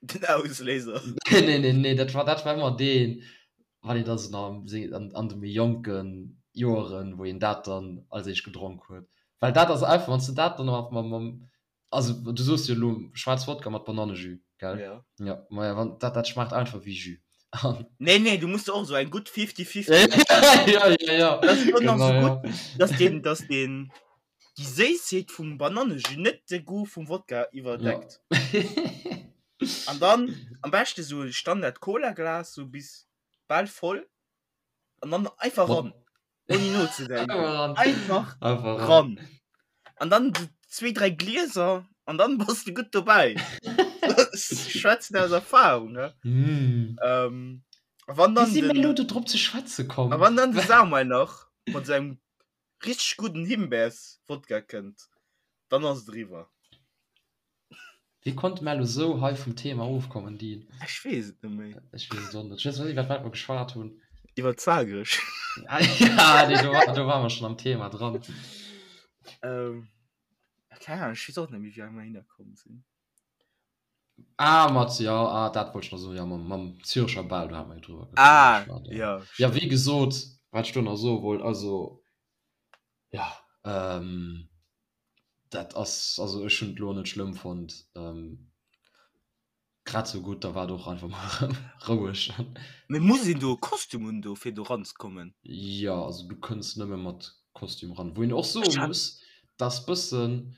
Den Ausléiser. Nee, nee, nee, dat war, dat war ëmmer deen, wann een da sou nach am, an de méi jonke Joeren, wou een dat dann als éischt gedronk huet. Well dat ass einfach, wann s de dat dann nach mam, mam Also du soos jo elo schwaarz Wodka mat Banannejus, gell? Ja. Ja, maja wann dat dat schmaacht einfach wéi Jus. An Nee, nee, du musst och sou eng gutt 50-50 ja, ja, ja. Das ist dann nach Genau, so ja. gutt, dass den, dass den déi Séissheet vum Banannejus net de Goût vum Wodka iwwerdeckt. Ja. An dann am beschte sou Standard Cola-Glas, sou bis bal voll an dann einfach ran. Ohne nozedenken. Einfach ran. Einfach Einfach ran. ran. An dann so zwee, dräi Glieser an dann bass du gutt dobäi. Ech schwätzen aus Erfahrung, ne? Mm. Ähm, a wann Wéi dann si mir den, elo do drop ze schwätze komm? a wann dann de Samuel nach mat sengem richteg gudden Himbeers-Wodka kënnt, dann ass et eriwwer. Wéi konnte mer elo sou hei vum Thema ofkommen, Dean? Ech weess et net méi. Ech weess et och net. Ech weess net, iwwer wat mer geschwat hunn. Iwwer Zagreg. Ja, nee, do, do ware mer schonn am Thema dran. Ähm, keng Ahnung, ech weess och net méi, wéi mer hinner komm sinn. Ah, mat, ja, ah, dat wollt ech nach soen, ja, mam, mam Zürecher Bal, do hate mer jo drüber Ah, geschwat, ja. ja, Ja, wéi stimmt. gesot, wat ech do nach soe wollt, also, ja, ähm, Dat ass, also ech hunn et elo net schlëmm fonnt, grad sou gutt, da war et och einfach mol erëm roueg. Mee muss een do e Kostüm un do fir do ranzekommen? Jo, also du kënns nëmme mat Kostüm ran. Wou een och soe muss, dass bëssen,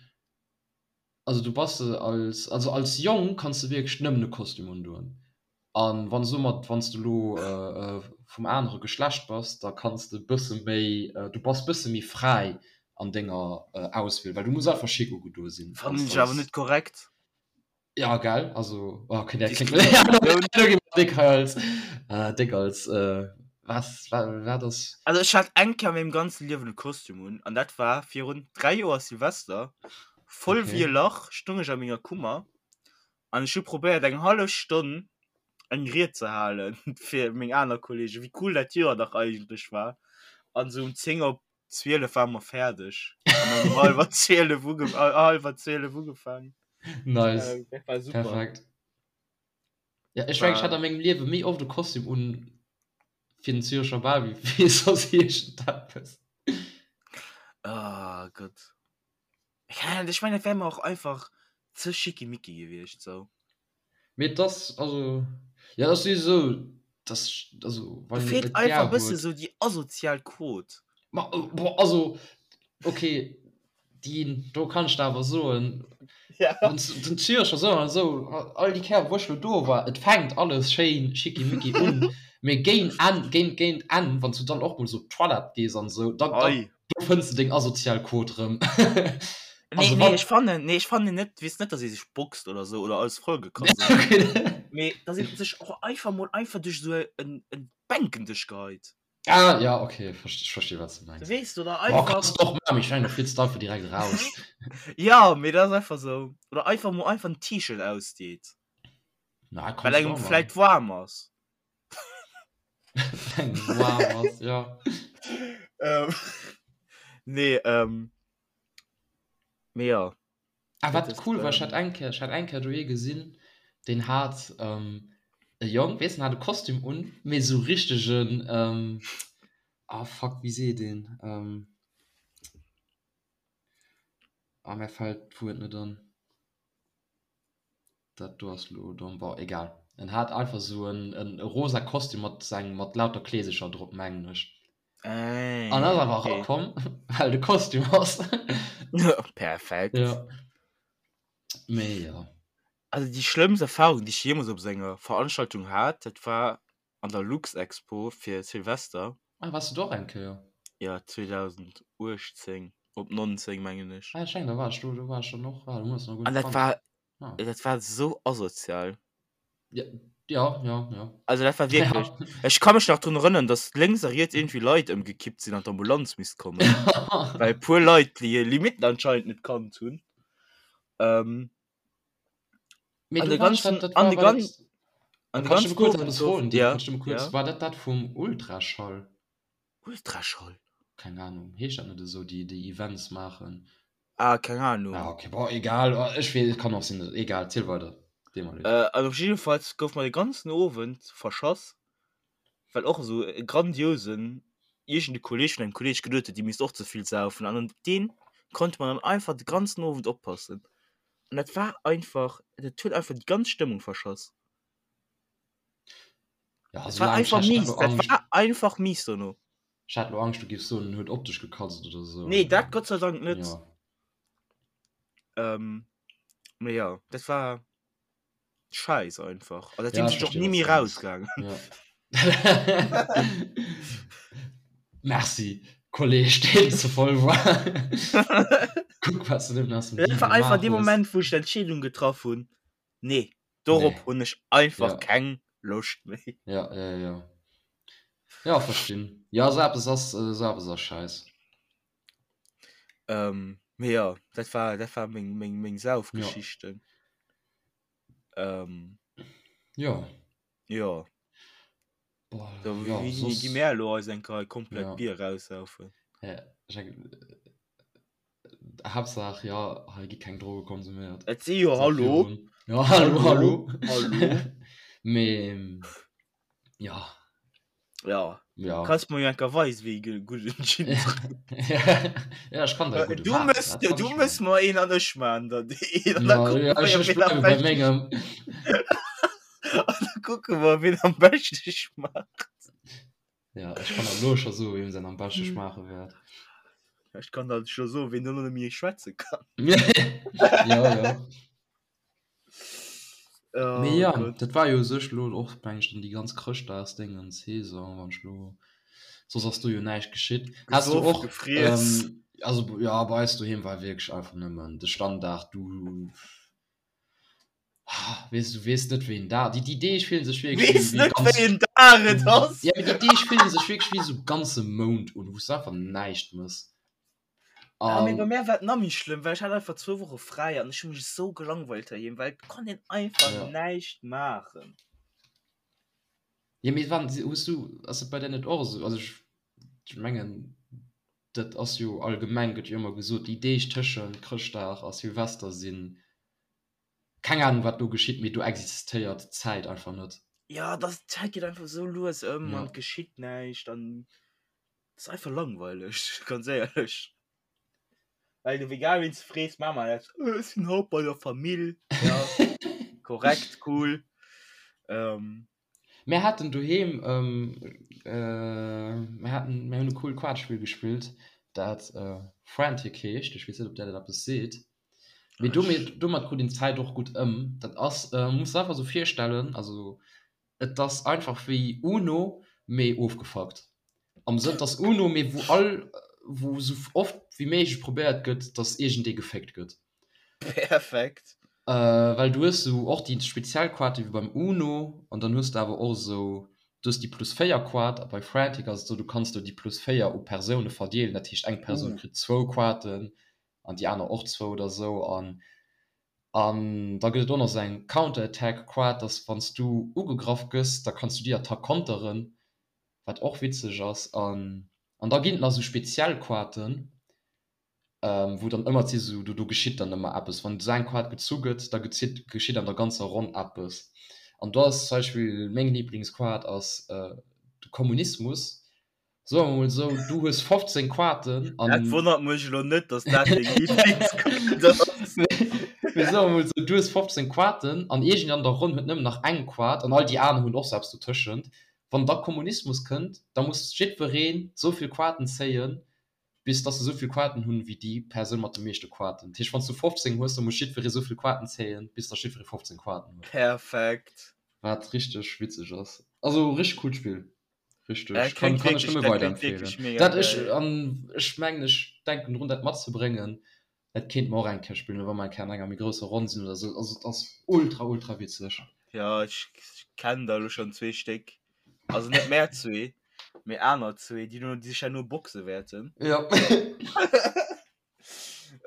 also du bass als, also als Jong kanns de wierklech nëmmen e Kostüm undoen. An wann soumat wann s de elo vum anere Geschlecht bass, da kanns de bësse méi, du bass bësse méi fräi an denger Auswiel, well du muss einfach schick ugedoe sinn. Fannen ech awer net korrekt. Ja gell, also okay dat kléngt elo gi mer déck hei als déck als was wat ass. Also ech hat eng Kéier a mengem ganze Liewen e Kostüm un an dat war virun 3 Joer Silvester, voll wéi e Lach stung ech a menger Kummer An ech hu probéiert eng hallef Stonn eng Ried ze halen fir meng aner Kollegen, wéi cool dat Joer dach eigentlech war. An sou um 10 op 12 ware mer fäerdeg. An dann um hallwer 12 uge hallwer 12 ugefaangen. Nice. Äh, dat war super. Perfekt. Ja, ech mengen, ech hat a mengem Liewe méi oft e Kostüm un fir den Zürecher Bal wéi fir soss iergendeppes. Oh Gott. Ech mengen, dat wär mer och einfach ze schickimicki gewiescht sou. Mee et ass, also, jo, et ass souwisou, dass, also, Do wann een et feelt net einfach gär e bësse huet. sou déi asozial Quot. Ma, boah, also, okay, déi do kann ech der awer soen, Ja. wann s den Zürcher sou an esou, all déi Kéier wou ech lo do war, et fänkt alles schéin schickimicki un, mee géint Enn, géint, géint Enn, wann s du dann och mol sou op d'Toilette gees an esou, da, da, Ei. Do fënns de deng asozial Quot rëm. Nee, Also nee, wann ech fannen, nee, ech fannen net, weess net, dass ee sech boxt oder sou oder alles vollgekratzt ass. Okay. Mee dass ee sech och einfach mol einfach duerch sou en, en Bänkendësch geheit. Ah, ja, okay, verst, ech versti wat s de mengs. Weess de, oder Boah, einfach. kanns de och maachen, mee ech mengen, da flitts de einfach direkt eraus. Ja, mee dat ass einfach sou. Oder einfach mol einfach en T-Shirt ausdeet. Na, Well kanns de engem och maachen. vläit waarm ass. Wow, was, ja. Ähm, nee, ähm, mee ja. Ah, Dat wat ist, cool war, ich ähm, hat eng Kéier, ich hat eng Kéier do ee gesinn, deen hat ähm, e Jong, weess, den hat e Kostüm un, mee sou richtegen, ähm, ah fuck, wéi seet een, ähm, ah, mär fält d'Wuert net an. Dat do ass lo domm. Bon, egal. En hat einfach sou en, en rosa Kostüm mat seng, mat lauter Kleesecher drop, mengen ech. An ass Ah, awer okay. erakomm, well de Kostüm ass. Perfekt. Ja. Mee jo. Also déi schlëmmst Erfahrung, déi ech jeemools op sou enger Veranstaltung hat, dat war an der Luxexpo fir Silvester. Ah, wars du do och eng Kéier? Ja, 2018 op 19 mengen ech. Ah, ech mengen, da war ech do, do war ech dann och. Ah, du hues nach guer An net dat kannt. war, Ah. dat war sou asozial. Ja, ja, ja, ja. Also dat war wierklech, Ja. ech ka mech nach drun erënneren, dass lénks a riets iergendwéi Leit ëmgekippt sinn an d'Ambulanz misst kommen, well e puer Leit déi hir Limitten anscheinend net kannt hunn. Ähm. Mee du war dat, dat war, war dat, an de ganzen kurz etwas froen, ja, kurz, ja. War dat dat vum Ultraschall? Ultraschall? Keng Ahnung, heescht dat net esou, déi déi Events maachen? Ah, keng Ahnung. Ah, okay, bon, egal, oh, ech weess, kann och sinn, egal, ziel weider. Äh, an op jiddefalls gouf mer de ganzen Owend verschass, well och esou e grandiosen iergend e Kolleg vun engem Kolleg geduet huet, déi misst och ze vill saufen an op deen konnte mer dann einfach de ganzen Owend oppassen. An dat war einfach, dat huet einfach déi ganz Stëmmung verschass. Ja, Dat war einfach mies, dat war einfach mies dono. Ech hat lo Angscht, du giffs soen, en huet op dech gekatzt oder sou. Nee, dat Gott sei Dank net. Ja. Ähm, mee ja, dat war scheiß einfach. An Ja, seitdem ech sinn ech och verstehe, ni wat méi du mengs. rausgaangen. Ja. Merci, Kolleg, deen ze voll war. Kuck, wat s du nëmmen aus dem Dat Deal war einfach gemaach dee hues. Moment, wou ech d'Entscheedung getraff hunn, nee, dorop Nee. hunn ech einfach Ja. keng Loscht méi. Ja, ja, ja. Ja, verstinn. Ja, sou eppes ass, sou eppes ass scheiss. Ähm, mee ja, dat war, dat war meng, meng, meng Ja. Saufgeschichten. Ähm, Ja. ja. Boah, Da ja, wéini gi soss, mär elo eis eng Kéier komplett ja. Bier raussaufen? Ja, ech denken, Haaptsaach, ja, hei gi keng Droge konsuméiert. Et si jo, Sag hallo, virun. Ja, hallo, hallo, hallo. hallo. Mee, ja. Ja. Ja. Kanns mer jo enker weisen, wéi ee gudden Gin drénkt. Ja, ech kann der e gudde Du maachen, mëss, dat kann du ech mëss maachen. mer een an ech maan der een an da Ja, kucke ja, mer ech, jo, ech ween am bleiwe bei beschte mengem. An da kucke mer, ween am beschte schmaacht. Ja, ech kann der elo scho soen, wiem säin am beschte schmaache wäert. Ech kann der scho soen, ween dono net méi schwätze kann. Ja, ja. Oh Mee ja, Gott. dat war jo u sech elo och, meng ech, dann déi ganz Chrëschtdagsdéngens-Saison, wann ech elo, soss ass do jo näischt geschitt. Has du Gesoff, och, gefriess. ähm, also ja, bei eis doheem war wierklech einfach nëmmen de Standard, du weess, du weess net wéi en Dag, déi, déi Deeg fillen sech wierklech wéi, Weess wéi net ganz, wéi en Dag et ass. ja, mee déi Deeg fillen sech wierklech wéi esou ganze Mount un, wou s du einfach näischt mëss. Ah, mee bei An mär war et nach méi schlëmm, well ech hat einfach zwou Woche fräi an ech hu mech esou gelangweilt heiheem, well et konnt een einfach ja. näischt maachen. Ja, mee wann, hues du, ass et bei där net och esou, also ech, ech mengen, dat ass jo allgemeng, gëtt jo ëmmer gesot, déi Deeg tëschent Chrëschtdag a Silvester sinn, keng Ahnung wat do geschitt, mee do existéiert d'Zäit einfach net. Ja, das, d'Zäit geet einfach esou lues ëm Ja. an et geschitt näischt an Das ist einfach langweilig, ganz éierlech. Well du egal wien s du frees, maa mer dat, äh, ech sinn haut bei der Famill. Ja, korrekt, cool. Ähm. Mir haten doheem, ähm, äh, mir haten, mir hunn e coolt Quatschspill gespillt, dat äh, Frantic heescht. Ech weess net, ob där dat eppes seet. Mee domat, domat krut een d'Zäit och gutt ëm. Dat ass, äh, muss der einfach esou virstellen, also Et ass einfach wéi Uno, mee ofgefuckt. Am Sënn, et ass Uno, mee wou all, wou sou oft wéi méiglech probéiert gëtt, dass iergendee geféckt gëtt. Perfekt. Well du hues sou och déi speziell Quarte wéi beim Uno an dann hues de awer och esou, du hues déi plus 4 Quart a bei Frantic ass et esou, du kanns do déi plus 4 u Persoune verdeelen, dat heescht eng Persoun kritt zwou Quarten an déi aner och zwou oder esou an An da gëtt et och nach esou eng Counter-Attack Quad, dass wann s du ugegraff gëss, da kanns du déi Attack konteren, wat och witzeg ass. An an da ginn et nach esou speziell Quaten, wou dann ëmmer si sou, do do geschitt dann ëmmer eppes. Wann esou eng Quad gezu gëtt, da gezitt geschitt an der ganzer Ronn eppes. An do ass zum Beispill meng Liblingsquad ass de Kommunismus. Soe mer mol esou, du hues 15 Quarten an. Dat wonnert mech elo net, dass dat deng Lieblingsquart ass. Mee soe mer mol esou, du hues 15 Quarten an iergend an der Ronn huet nëmmen nach eng Quart an all déi aner hunn och sou eppes dotëschent. Wann da Kommunismus kënnt, da muss jiddwereen esou vill Quarten zéien, bis dass se esou vill Quarten hunn, wéi déi Persoun mat de meeschte Quarten. Dat heescht, wann s du 15 hues, da muss jiddweree esou vill Quarten zéien, bis dass jiddweree 15 Quarten huet. Perfekt. Wat richteg witzeg ass. Also richteg coolt Spill. Richteg. Äh, Kann, klingt kann ech wirklich, nëmme dat klingt wirklich weiderempfehlen. mega Dat ech, geil. an ech mengen, ech denken drun, dat matzebréngen. Dat kéint mer och eng Kéier spillen, wa mer eng Kéier an enger méi grousser Ronn sinn oder sou. Also, et ass ultra, ultra witzeg. Ja, ech kennen der elo schonn zwee Stéck. Also net mär zwee, mee aner zwee, déi no, déi sech herno boxe wäerten. Ja.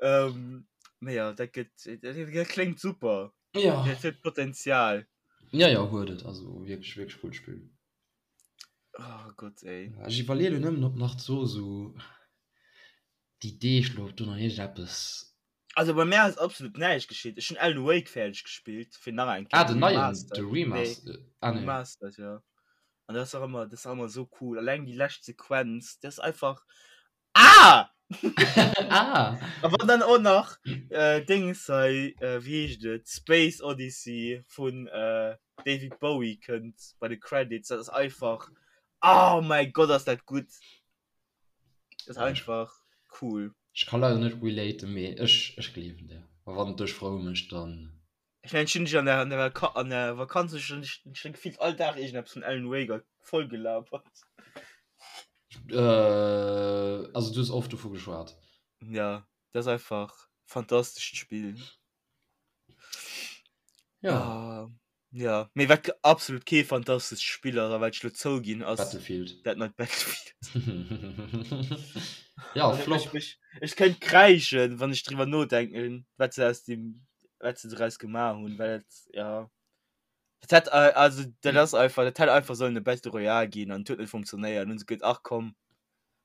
Ähm, mee ja, dat gëtt, dat, dat kléngt super. Ja. Dat huet Potenzial. Ja, ja, huet et. Also wierklech, wierklech coolt Spill. Oh Gott, ey. Ech iwwerleeë lo nëmmen, ob nach so sou déi Deeg lo, ob do nach iergendeppes. Also bei mär ass absolut näischt geschitt. Ech hunn Alan Wake fäerdeg gespillt, fir nach eng Kéier. Ah, den neien, de Remastered. Nee, ah, nee. Remastered, ja. An dat ass och ëmmer, dat ass och ëmmer esou cool. Alleng déi lescht Sequenz, dat ass einfach. Ah! ah! A wann dann och nach äh, Dings hei, äh, wéi heescht et, Space Odyssey vun äh, David Bowie kënnt bei de Credits, dat ass einfach. Oh mäi Gott, ass dat gutt! Dat ass einfach cool. Ech ka leider net relaten, mee ech, ech gleewen dir. A wann et dech frou mécht, dann. Ech mengen, ech hunn dech an der, an der, an der Vakanz ech hunn dech, ech hunn gefillt all Dag iergendeppes vun Alan Wake voll gelabert. Äh, also du hues oft dovu geschwat. Ja, dat ass einfach fantastescht Spill. Ja. Ah. Ja, mee wat absolut kee fantastescht Spill ass a wat ech lo zouginn ass Battlefield. dat neit Battlefield. Ja, Also, Flop. ech, ech, ech kéint kräischen, wann ech driwwer nodenken, wat se aus dem, wat se draus gemaach hunn, well et, ja. Dat hätt, äh, also dat ass einfach, dat hätt einfach sollen e Battle Royale ginn an et huet net funktionéiert. Dann hunn se geduet, ach komm,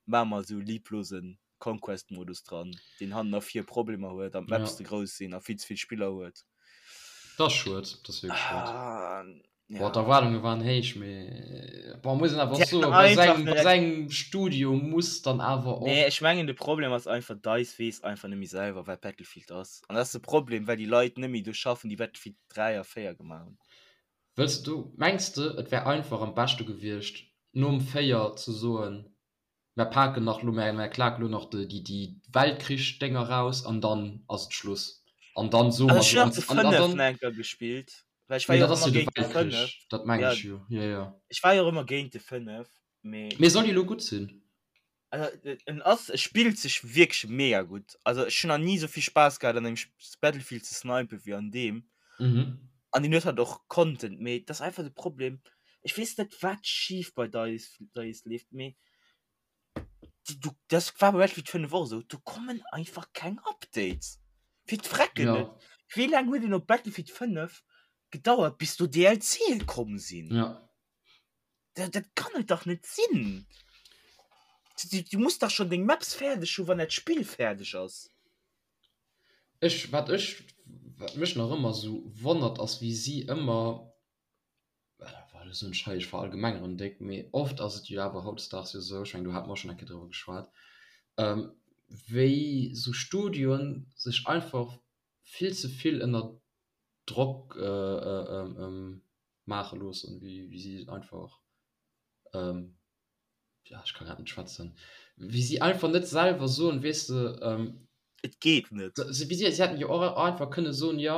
maache mer esou e lieblosen Conquest-Modus dran, deen hannen a vir Problemer huet an d'Maps Ja. ze grouss sinn a vill ze vill Spiller huet. Dat ass schued, dat ass wierklech schued. Ah, Boah, ja. d'Erwaardunge waren héich, mee bon, muss een awer Si och soen, hätten bei einfach sengem, bei net. sengem Studio muss dann awer Nee, och. ech mengen de Problem ass einfach, DICE weess einfach net méi selwer, wat Battlefield ass. An dat ass de Problem, well déi Leit net méi do schaffen, déi Battlefield 3 a 4 gemaach hunn. Wëlls du, mengs de, et wär einfach am beschte gewiescht, nom 4 ze soen, Mär paken nach lo, mär, mär klaken lo nach déi, déi Weltkrich-Dénger raus an dann ass et Schluss. An dann soe Also mer ech so, hunn an, nach de an, an 5 dann, nach eng Kéier gespillt, well ech war mee jo dat och ass ëmmer jo de géint de 5. Weltkrich, dat mengen Ja, ech jo, jo, jo. ech war jo och ëmmer géint de 5, mee. Mee soll jo lo gutt sinn. Also en ass, e spillt sech wierklech mega gutt. Also ech hunn nach ni esou vill Spaass gehat an engem Battlefield ze snipen wéi an deem. Mhm. An deen huet halt och Content, mee et ass einfach de Problem, ech weess net wat schif bei DICE, DICE leeft, mee du, das war bei Battlefield 5 och esou, do kommen einfach keng Updates. Fir d'Frecken Ja. net. Wéi laang huet een op Battlefield 5 gedauert bis do DLCe komm sinn? Ja. Dat, dat kann et dach net sinn. Du, du muss dach schon deng Maps fäerdeg hu wann dat Spill fäerdeg ass. Ech, wat ech, wat mech nach ëmmer esou wonnert ass wéi si ëmmer, well elo soen ech hei, ech verallgemengeren déck, mee oft ass et jo awer hautdesdaags jo esou, ech mengen do hate mer och schonn eng Kéier driwwer geschwat, wéi esou Studioen sech einfach vill ze vill ënner Drock maache loossen, wéi si einfach, ja ech ka grad net schwätzen, wéi si einfach net selwer soen, weess de, Et geet net. Wéi si, si hätten jo och einfach kënne soen, jo,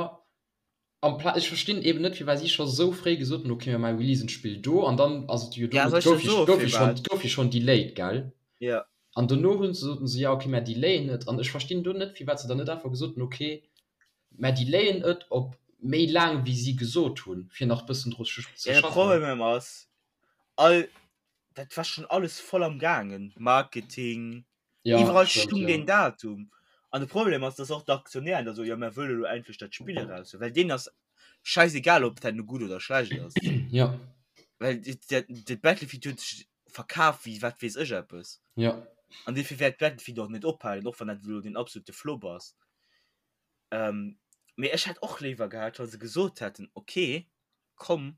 ampla ech verstinn eben net, firwat si scho sou fréi gesot hunn, okay mir maache releasen d'Spill do an dann ass et jo Ja, do, soll et ech gouf der jo soe gouf jo schonn, firwat? et gouf jo schonn delayed, gell? Ja. An dono hunn se soten se, ja okay mir delayen et an ech verstinn do net, firwat se dann net einfach gesot hunn, okay Mä delayen et op méi laang wéi si gesot hunn, fir nach bëssen dru ze Ja, de schaffen. Problem ass, all dat war schon alles voll am gaangen, Marketing, Ja, iwwerall stimmt, stung ja. deen Datum. An de Problem ass, dass och d'Aktionären da soen, jo mär wëlle lo endlech dat Spill eraus hunn, well deenen ass schäisegal, ob dat nu gutt oder schlecht ass. Ja. Well dat dat Battlefield huet sech verkaf wéi wat weess ech eppes. Ja. An dofir wäert Battlefield och net ophalen, och wann dat elo den absolute Flop ass. Ähm, mee ech hätt och léiwer gehat, wa se gesot hätten, okay, komm,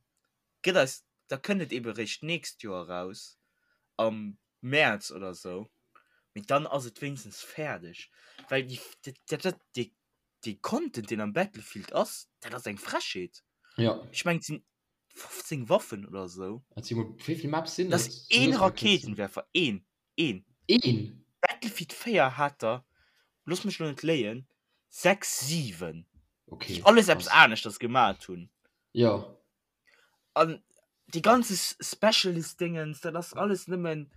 gëtt eis, da kënnt et ebe réischt d'nächst Joer eraus, am Mäerz oder esou, mee dann ass et wéinstens fäerdeg. Well déi, dat, dat, dee, dee Content, deen am Battlefield ass, dat ass eng Frechheet. Ja. Ech mengen, et sinn 15 Waffen oder esou. Et si mol, wéi vill Maps sinn Dat et? ass een Rakéitenwerfer, een, een. Een? Battlefield 4 hat der, looss mech lo net léien, 6, 7, Okay, déi alles eppes krass. aneschters gemat hunn. Ja. An déi ganze Specialist-Dingens, dat ass alles nëmmen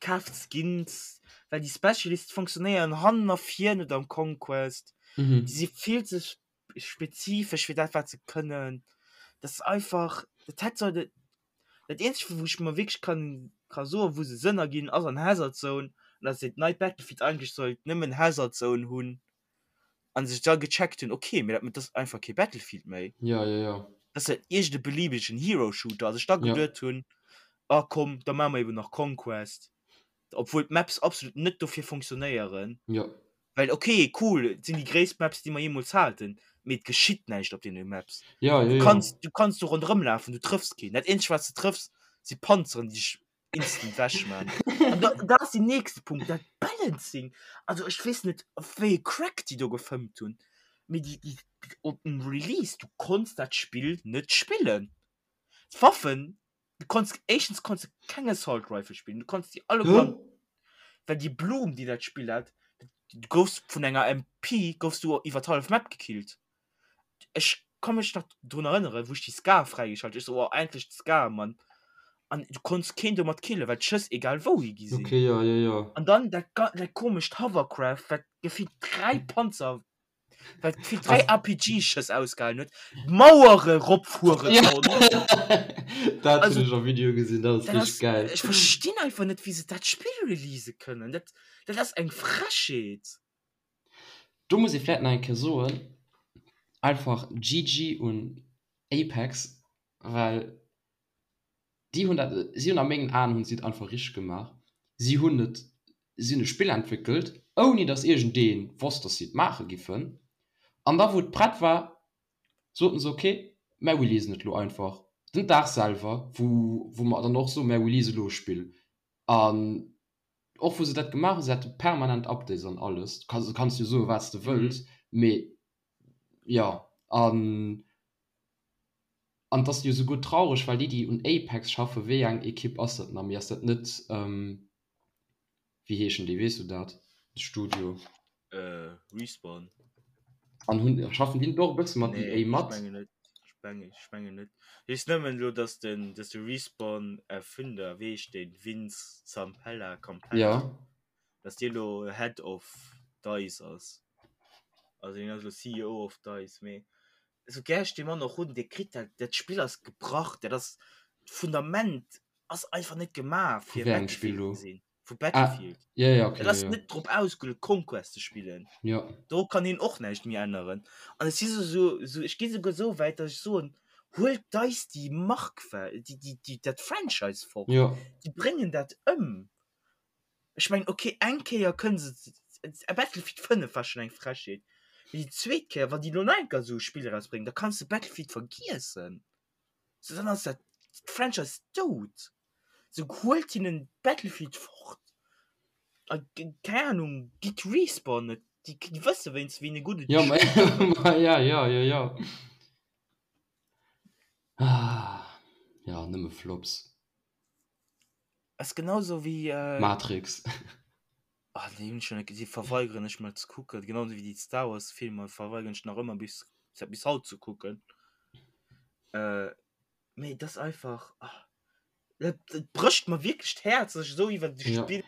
kaaft Skins, well déi Specialists funktionéieren hannen a vir net am Conquest. Mhm. Déi si vill ze spezifesch fir dat wat se kënnen. Dat ass einfach, dat hätt sollte, dat eenzegt wou ech mer wierklech kann ka soen, wou se Sënn erginn, ass an Hazard Zone, an datt se dat neit Battlefield eigentlech sollt nëmmen Hazard Zone hunn. An sech da gecheckt hunn, okay, mee dat ass einfach kee Battlefield méi. Ja, ja, ja. Dat ass ja iergend e beliebegen Hero-Shooter. A sech da Ja. geduet hunn, ah komm, da maache mer eben nach Conquest. Obwuel d'Maps absolut net dofir funktionéieren. Ja. Well okay, cool, et sinn déi gréisst Maps, déi mer jeemools haten, mee et geschitt näischt op deene Maps. Ja, ja, Du ja. kanns, du kanns do ronderëm lafen, du trëffs keen. Dat eenzegt, wat s de trëffs, si Panzeren, déi dech instant wech man. An da, dat ass den nächste Punkt, dat Balancing. Also ech weess net, wéi e Crack déi do gefëmmt hunn, mee déi, déi, op dem Release, du konns dat Spill net spillen. D'Waffen, du konns, éischtens konns de keng Assault Rifle spillen, du konns déi alleguer, well déi Bloom, déi dat Spill hat, du goufs vun enger MP goufs du iwwer d'hallef Map gekillt. Ech ka mech nach drun erënneren, wou ech déi Scar fräigeschalt hunn, ech sou, oh endlech d'Scar, Mann. An du konns keen domat killen, well d'Schëss egal wou hi gi sinn. Okay, ja, ja, ja. An dann dat, dat komescht Hovercraft, wat gefillt 3 Panzer wat gefillt 3 RPG-Schëss ausgehalen huet, Mauere ropfuere Ja. konnt. Dat Also, hunn ech am Video gesinn, dat ass dat richteg ass, geil. ech verstinn einfach net, wéi se dat Spill release kënnen. Dat, dat ass eng Frechheet. Do muss ee vläit nach eng Kéier soen, einfach GG un Apex, well déi hunn dat, si hunn a mengen Aen hunn si et einfach richteg gemaach. Si hunn et, si hunn e Spill entwéckelt, ouni datt iergendee wosst, datt si et maache giffen. An da wou et prett war, soten se, ok, mär releasen et elo einfach den Dag selwer, wou wou mer dann och soen, mär release elo e Spill. An och wou se dat gemaach hunn, se hate permanent Updates an alles, du kanns, du kanns jo soen, wat s de wëlls, mee jo, an an et ass jo souguer traureg, well déi, déi un Apex schaffen, wéi eng Ekipp ass dat nach méi, ass dat net, wéi heeschen déi, weess du dat, de Studio? Respawn. An hunn, schaffen déi net och e bësse mat Nee, EA ech mat? mengen net. Ech mengen, ech mengen net. Ech weess nëmmen elo, dass den, dass de Respawn-Erfinder, wéi heescht deen, Vince Zampella, Campella, Ja. dass dee lo Head of DICE ass. Also deen ass elo CEO of DICE, mee esou gär ech dee Mann och hunn, dee kritt dat, dat Spill ass gebrach, dat ass, d'Fundament ass einfach net gemaach Vu fir wéi engem Spill Battlefield elo? ze sinn. Vu Ah, Battlefield. ja, ja, okay, Dat ja, ass ja. net drop ausgeluecht Conquest ze spillen. Ja. Do kann een och näischt méi änneren. An ech si sou, sou, sou, ech gi souguer sou wäit, datt ech soen, huelt DICE déi Mark, déi, déi, déi, dat Franchise fort. Ja. Déi bréngen dat ëm. Ech mengen, okay, eng Kéier kënne se, Battlefield 5 war schonn eng Frechheet, mee déi zweet Kéier, wann déi elo nach eng Kéier esou e Spill erausbréngen, da kanns de Battlefield vergiessen. Sou, dann ass dat Franchise dout. Sou, huelt hinnen Battlefield fort a keng Ahnung, gitt Respawn et, déi déi wësse wéinst wéi e gudde Ja, ma ma ja, ja, ja, ja. Ah, ja, nëmme Flops. Ass genau sou wéi äh. Matrix. Ah déi hunn ech jo net gesinn, verweigeren ech mol ze kucken, genau sou wéi déi Star Wars Filmer verweigeren ech nach ëmmer bis bis haut ze kucken. Äh mee et ass einfach ah dat dat brécht mer wierklech d'Häerz, dass ech esou iwwer de Ja. Spill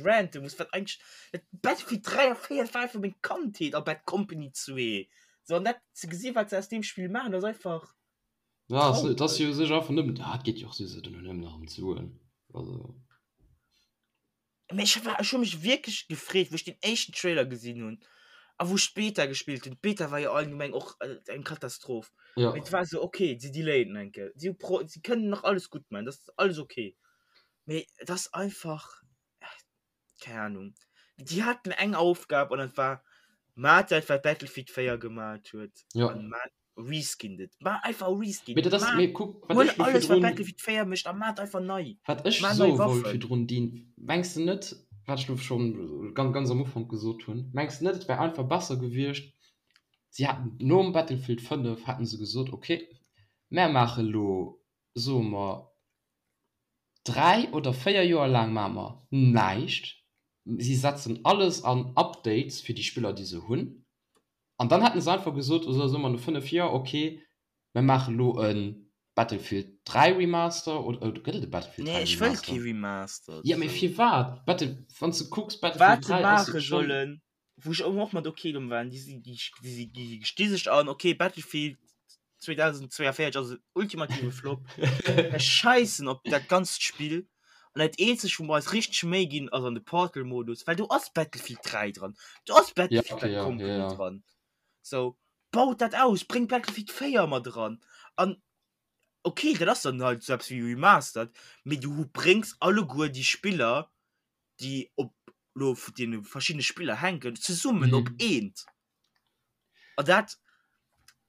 rante muss, wat eigentlech dat Battlefield 3 a 4 dat war einfach meng Kandheet a Bad Company 2 sou an dat ze gesi wat se aus deem Spill maachen ass einfach Ja, ass, et ass traureg. jo u sech einfach nëmmen, ah, et geet jo och souwisou duerno nëmmen nach ëm d'Suen, also. Mee ech war, ech hu mech wierklech gefreet, wou ech den éischten Trailer gesinn hunn a wou ech d'Beta gespillt hunn. D'Beta war jo allgemeng och eng Katastroph. Ja. Mee et war esou, okay, si delayen eng Kéier, si pro, si kënnen nach alles gutt maachen, dat ass alles okay. Mee et ass einfach, keng Ahnung, déi haten eng Aufgab an dat war, Maacht dat, wat Battlefield 4 gemaat huet Ja. an maacht Reskin et. Maach einfach Reskin. Mee dat ass, Maach, mee kuck, wat huel ech lo alles, wat virdrun, Battlefield 4 mécht a maach et einfach nei. wat ech Maach nei soe wollt Waffen. virdrun, Dean, mengs de net, wat ech lo schonn ganz, ganz am Ufank gesot hunn, mengs de net, et wär einfach besser gewiescht, si hätten nom Battlefield 5 hätten se gesot, okay, mär maache lo, soe mer, 3 oder 4 Joer laang maache mer näischt, si setzen alles an Updates fir déi Spiller, déi se hunn, An dann hätten se einfach gesot, oder soe mer no 5 Joer, ok, mir maache lo e Battlefield 3 Remaster, oder gëtt et e Battlefield Nee, 3 ech wëll kee Remaster? Remaster. Jo, mee Sou. firwat? Battle, wann s de kucks, Battlefield Wat se 3 ass maache schonn. sollen, wou ech och mat ok domm waren, déi si, déi, déi si, déi sti sech an, ok, Battlefield 2042 ass en ultimative Flop. Mir scheissen op dat ganzt Spill. An dat eenzegt, wou mer eis richteg Méi ginn, ass an de Portal-Modus, well do ass Battlefield 3 dran, do ass Ja, Battlefield okay, Bad ja, ja, Company ja. dran. Sou, baut dat aus, bréngt Battlefield 4 mat eran an okay, dat ass dann halt sou eppes wéi Remastered, mee du bréngs alleguer déi Spiller, déi op lo vu deene verschiddene Spiller hänken, zesummen op eent. An dat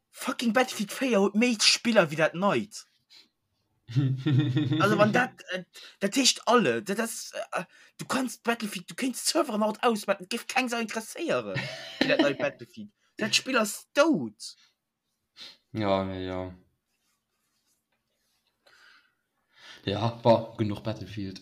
fucking Battlefield 4 huet méi Spiller wéi dat neit. Also wann dat äh, dat heescht alle dat ass äh, du kannst Battlefield du kéints d'Serveren haut ausmachen, et géif keng Sau interesséieren fir dat neit Battlefield. Dat Spill ass dout. Ja, nee, ja. Ja, bon, genuch Battlefield.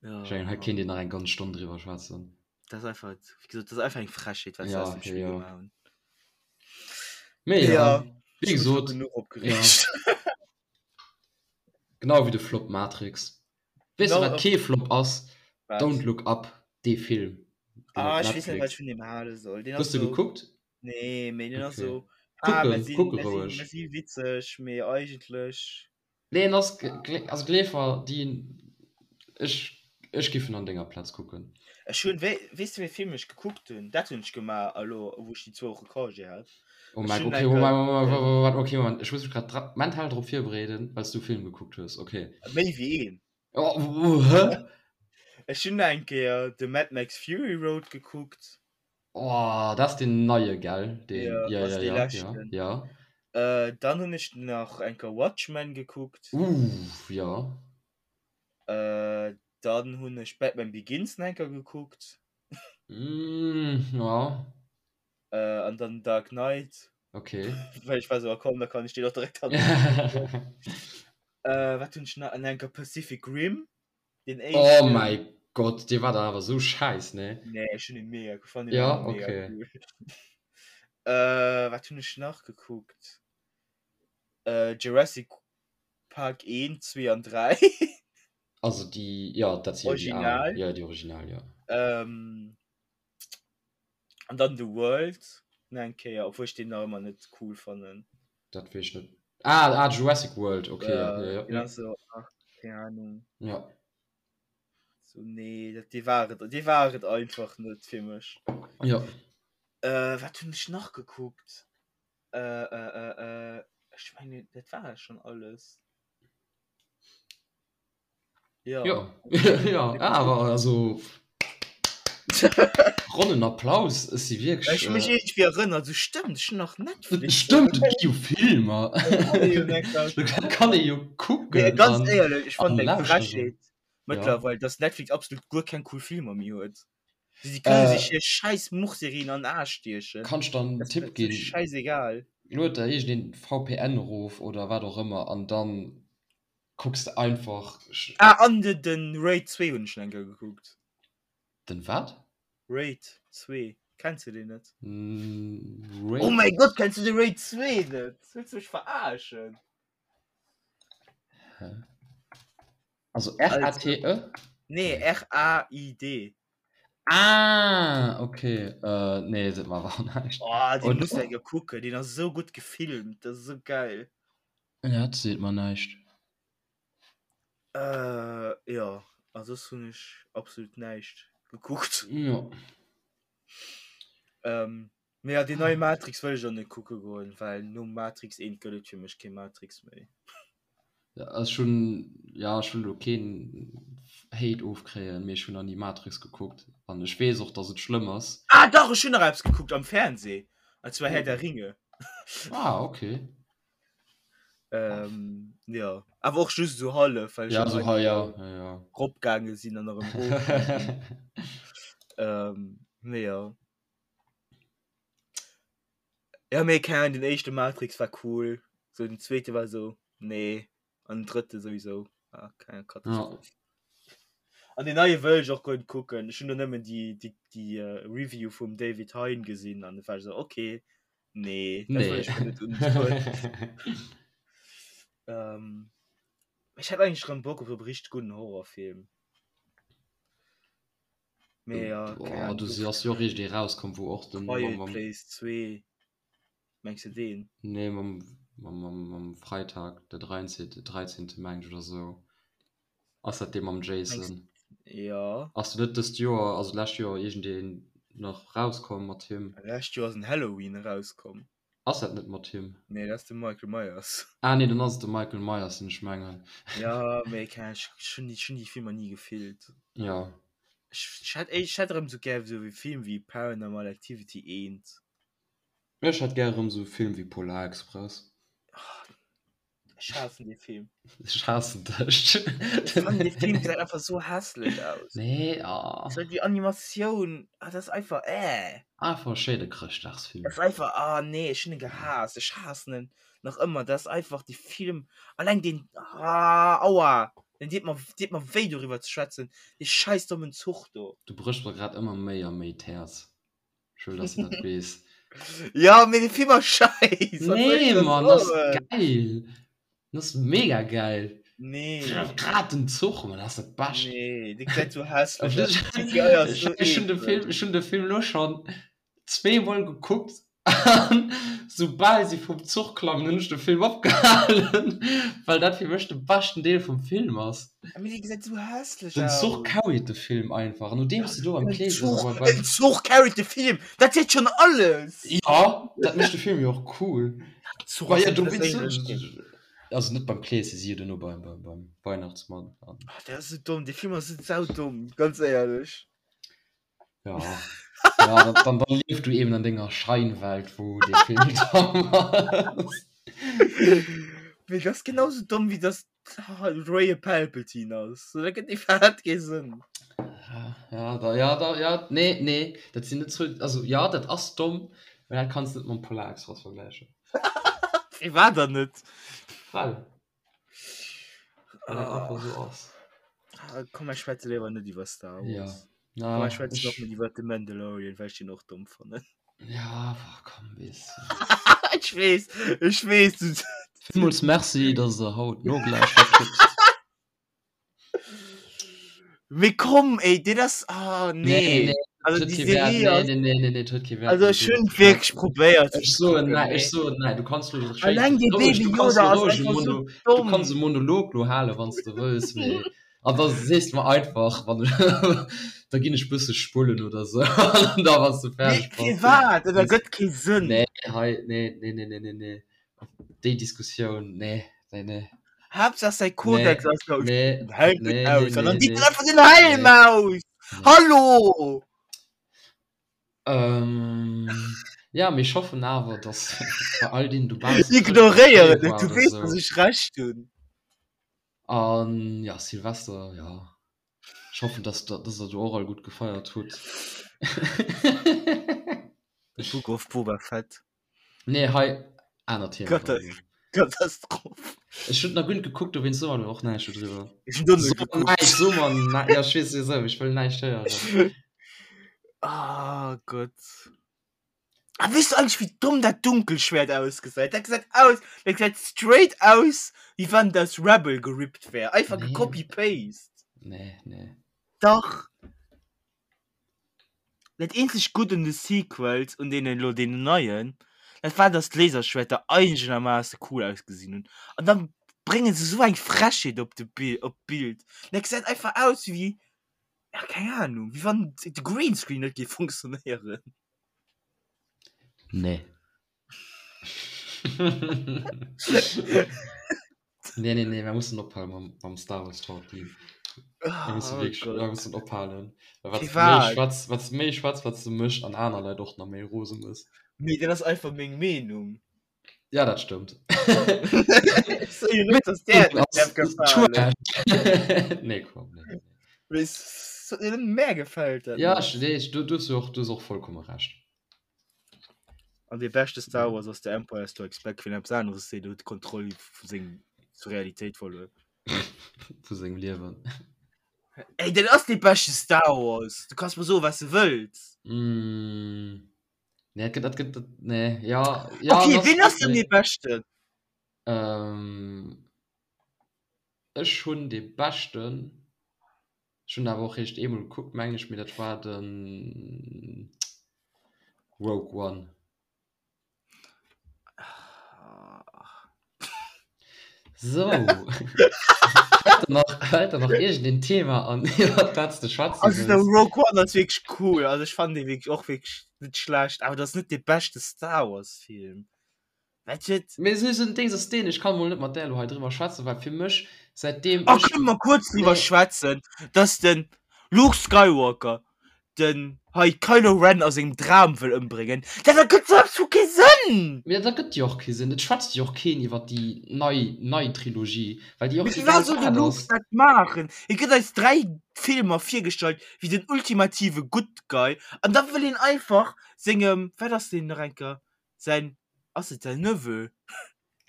Ja. Ech mengen, hei kéint een nach eng ganz Stonn driwwer schwätzen. Dat ass einfach, wéi gesot, dat ass einfach eng Frechheet, wat se Ja, aus dem Spill ja. gemaach hunn. Mee ja, Ja, wéi ech hu mech elo gesot, genuch ja. opgereegt. Genau wéi de Flop Matrix. Weess de, Genau, wat kee Flop ass? Wat? Don't Look Up, dee Film, deen Ah, op ech weess net, wat ech Netflix. vun deem hale soll. Deen Hues ass de sou. gekuckt? Nee, mee deen ass Okay. sou, ah, mer Kucken, sinn, kucke mer sinn, roueg. mer si witzeg, mee eigentlech. Nee, en ass, also gleef mer, déi, ech, ech giff en an denger Plaz kucken. Ech hunn, wéi, weess de wéi Film ech gekuckt hunn? Dat hunn ech gemaach elo, wou ech déi zwou Woche Congé hat. Oh Ech mäi, hunn okay, eng Moment, Kéier Moment, den. Moment, okay, Moment, ech muss mech grad dra, mental drop virbereeden, well s du e Film gekuckt hues, okay. Méi wéi een. Oh, hä? Ech hunn eng Kéier de Mad Max Fury Road gekuckt. Oh, dat ass deen neie, gell? Deen, Ja, ja, ass ja, dee ja, ja, leschten. ja. Äh, dann hunn ech nach eng Kéier Watchmen gekuckt. Uff, ja. Äh, dann hunn ech Batman Begins nach eng Kéier gekuckt. Mm, ja. Äh, an dann Dark Knight. Okay. Well ech war sou, ah komm, da kann ech deen och direkt hannerun. Äh, wat hunn ech nach? An eng Kéier Pacific Rim. Den Oh éischten. mäi Gott, dee war dann awer sou schäiss, ne? Nee, ech hunn en mega, ech fannen en Ja, awer mega okay. cool. Äh, wat hunn ech nach gekuckt? Äh, Jurassic Park 1, 2 an 3. Also déi, jo, dat si jo déi al. Original. Jo, déi original, jo. Ähm, an dann The World nach eng Kéier, obwuel ech deen nach ëmmer net cool fannen. Dat weess ech net. Ah, ah, Jurassic World, okay, ja, Ja, ja, deen ja. ass so, ach, keng Ahnung. Ja. So, nee, dat, dee war et, dee war et einfach net fir mech. Ja. Äh, wat hunn ech nach gekuckt? Äh, äh, äh, äh, ech mengen, dat war schon alles. Ja. Ja, ja, awer also ronnen Applaus, ech si wierklech. Ech hu mech iergendwéi erënnert, sou stëmmt, ech hunn nach Netflix. Stëmmt, et gi jo Filmer. Dat kann ee jo kucken. Mee ganz éierlech, ech fannen et eng Frechheet mëttlerweil, dass Netflix absolut guer keng cool Filmer méi huet. Si kënne sech hir schäiss Muchserien an den Aarsch stiechen. Kann ech der en Tipp ginn? Schäisegal. Lued der iergendeen VPN erof oder wat och ëmmer an dann Kucks de einfach. Ah an de den Raid 2 hunn ech nach eng Kéier gekuckt. Den wat? Raid 2, kenns du deen net? Raid? Oh mäi Gott, kenns du de Raid 2 net? Wëlls du mech verarschen? Hä? Also R-A-T-E? Nee, R-A-I-D. Ah, okay. Äh, nee, seet mer awer näischt. Oh, deen muss de eng Kéier kucken, deen ass esou gutt gefilmt, dat ass esou geil. Ja, dat seet mer näischt. Äh, jo, a soss hunn ech absolut näischt gekuckt. Jo. Ähm, mee ja, deen neie Matrix wëll ech och net kucke goen, well nom Matrix 1 gëtt et fir mech kee Matrix méi. Ja, ech hunn, ja, ech wëll elo keen Hate ofkréien, mee ech hunn nach ni Matrix gekuckt an ech weess och, dass et schlëmm ass. Ah dach, ech hunn nach eppes gekuckt am Fernseh, an zwar Herr der Ringe. Ah, okay. Ähm, ja. Awer och just so hallef, well ja, so, ha, ja, ja, ja. ropgaange sinn an erëm rof. ähm, nee, ja. Ja, mee keine Ahnung, den éischte Matrix war cool. So den zweete war so, nee. An den drëtte sowieso. Ah, keine Katastroph. Ja. An den neie wëll ech och guer net kucken. Ech hunn do nëmmen déi, déi, déi uh, Review vum David Hein gesinn an war so, okay. Nee, dat wëll ech mir net undoen. Ähm, ech hätt eigentlech rëm Bock op e richteg gudden Horrorfilm. Mee ja, keng Boah, Ahnung, du so ass jo och eréischt ee rauskomm, wou och den Quiet mam, mam Place 2, mengs de deen? Nee, mam, mam, mam, mam Freitag, der 13. 13. Meng ech oder sou. Ass dat dee mam Mengs Jason? ja. Ass do net dëst Joer, also d'lescht Joer, iergendeen. nach rauskomm mat him. Lescht Joer ass en Halloween erauskomm. Ass dat net mat him? Nee, dat ass de Michael Myers. Ah nee, dann ass et de Michael Myers, den ech mengen. Ja, mee keng Ahnung, ech hunn déi, ech hunn déi Filmer ni gefillt. Ja. Ech, ech hätt, ech hätt erëm sou gär sou e Film wéi Paranormal Activity 1. Ech hätt gär erëm sou e Film wéi Polar Express. Ech haassen dee Film. Ech haassen dech. Ech fannen dee Film gesäit einfach sou hässlech aus. Nee, ah. So déi Animatioun, ah, dat ass einfach äh. Einfach e schéine Chrëschtdagsfilm. Dat ass einfach, ah nee, ech hunn en gehaasst. Ech haassen en nach ëmmer. Dat ass einfach dee Film, alleng deen, ah, aua, den deet mer, deet mer wéi doriwwer ze schwätzen, dee scheiss dommen Zuch do. Du bréchs mer grad ëmmer méi a méi d'Häerz. Ech wëll, dass du dat weess. Ja, mee de Film ass scheiss. Nee, Mann, das ass geil. Das ass mega geil. Nee. Grad den Zuch, Mann, das ass dat Bescht. Nee, dee gesäit sou hässlech aus. CGI ass sou Ech hunn de Film, ech hunn de Film lo schonn zweemol gekuckt. An soubal si vum Zuch klammen, hunn ech de Film opgehalen, well dat fir mech de beschten Deel vum Film ass. Mee dee gesäit sou hässlech Den Zuch carried de Film einfach. Nodeems de do beim Kleeschen Zuch, bei, beim... En Zuch carried de Film! Dat seet schonn alles! Ja, dat mécht de Film jo och cool. Zuch ass ja, du wéinst Also net beim Kleeschen, si jo duerno beim, beim, beim Weihnachtsmann. Ach, dat ass sou domm, dee Film ass sou saudomm, ganz éierlech. Ja, ja dann, dann, dann lief du eben an denger Scheinwelt, wo de Film domm ass. Mee dat ass genauso domm, wéi dass Rey e Palpatine ass. So, dat gëtt iwwerhaapt kee Sënn. Ja, ja, da, ja, da, ja, nee, nee, dat sinn net zwou, also ja, dat ass domm, mä dat kanns de net mam Polar Express vergläichen. Firwat dann net? Well. Well dat einfach esou ass. Ah, komm, mir schwätze léiwer net iwwer Star Wars. Ja. Na, komm, mir schwätzen och net iwwer The Mandalorian, well ech den och domm fannen. Ja, boah, komm, weess. Ech weess, ech weess. Du... Villmools Merci, dass der haut nogelauschtert hutt. Mee komm, ey, dat ass, ah, nee. Nee, nee, Also huet déi kee Wäert. Serie Nee, ass, nee, nee, nee, nee, huet kee Wäert. also ech hunn wierklech probéiert Ech soen näi, ech soen näi, du kanns lo schéin, Alleng dee roueg, Baby du kanns Yoda lo ass roueg e einfach sou Mono, du domm. kanns e Monolog lo halen, wann s de wëlls, mee an da sees de mer einfach, wann da ginn ech bësse spullen oder sou, an da wann s de Mee fäerdeg bass, firwat? Dat ergëtt kee Sënn. Nee, hei, nee, nee, nee, nee, nee, nee. Déi Diskussioun, nee, nee, nee. Haaptsaach säi Kodex Nee, ass do. nee, Den Helm geht nee, aus. nee, An dann nee, deet en nee. einfach den Helm Nee. aus. Nee. Hallo! Ähm, ja, mee ech hoffen awer, dass bei all deenen dobaussen Ignoréieren Chrëschtdag et, du war oder weess, dass sou. ech Recht hunn. An ja, Silvester, ja. Ech hoffen, dass der, dass der do och all gutt gefeiert hutt. The Book of Boba Fett. Nee, hei, aner Thema. Kata Katastroph. Ech hunn nach guer net gekuckt, dowéinst soe mer och näischt dodriwwer. Ech hunn do net So gekuckt. näischt, so mer näischt, ja, ech weess sowieso, ech wëll näischt héieren. Ah Gott. Ah, weess du eigentlech, wéi domm dat Dunkelschwert ausgesäit? Dat gesäit aus, dat gesäit straight aus, wéi wann et aus Rebel gerippt wär. Einfach Nee. gecopy-paste. Nee, nee. Dach. Dat eenzegt Gutt un de Sequels, un deenen elo deenen neien, dat war, dass d'Laserschwerter einegermaasse cool ausgesinn hunn. An dann brénge se esou eng Frechheet op de Bi op d'Bild. Dat gesäit einfach aus wéi, ja keng Ahnung, wéi wann de Greenscreen net géif funktionéieren. Nee. Nee, nee, nee, mir mussen ophalen mam, mam Star Wars Talk. Mir mussen Oh wierklech, Gott. mir mussen ophalen. Well wat méi Firwat? schwätz, wat méi schwätz, wat du mech an aner Leit och nach méi rose mëss. Mee dat ass einfach meng Meenung. Ja, dat stëmmt. Ech soe jo net, dass där et net däerf gefalen. Nee, komm, nee, nee. Mee s mär gefält dat Ja, net. ech, nee, du, du hues jo och, du hues och vollkomme Recht. An dee beschte Star Wars ass The Empire Strikes Back, wien eppes aneres seet, huet d'Kontroll vu seng zur Realitéit verluer. Vu sengem Liewen. Ey, dat ass dee beschte Star Wars! Du kanns mer soen, wat s de wëlls. Mm. Nee, dat gëtt, dat gëtt, dat, nee, ja, ja. Okay, das, wien ass denn nee. dee beschten? Ähm, ech hunn dee beschten, ech hunn awer och réischt eemol gekuckt, mengen ech, mee dat war den Rogue One. Sou. Fält der nach, fält der nach iergendeen Thema an, iwwer dat s de schwätze Also de wëlls? Rogue One ass wierklech cool, also ech fannen dee wierklech och wierklech net schlecht, awer dat ass net dee beschte Star Wars Film. Wat huet. Mee esou en Dings ass deen, ech kann mol net mat där elo hei driwwer schwätzen, well fir mech, säitdeem Oh, ech. kënne mer kuerz driwwer Nee. schwätzen, dass den Luke Skywalker den hei Kylo Ren a sengem Dram wëll ëmbréngen? Dat ergëtt sou absolut kee Sënn! Mee dat ergëtt jo och kee Sënn. Et schwätzt jo och keen iwwer déi nei, nei Trilogie, well déi Mee och firwat egal soll de wat Luke ass. dat maachen? Hie gëtt eis 3 Filmer virgestallt wéi den ultimative Good Guy an da wëll hien einfach sengem, wat ass deen nach eng Kéier, säin, ass et säin Neveu?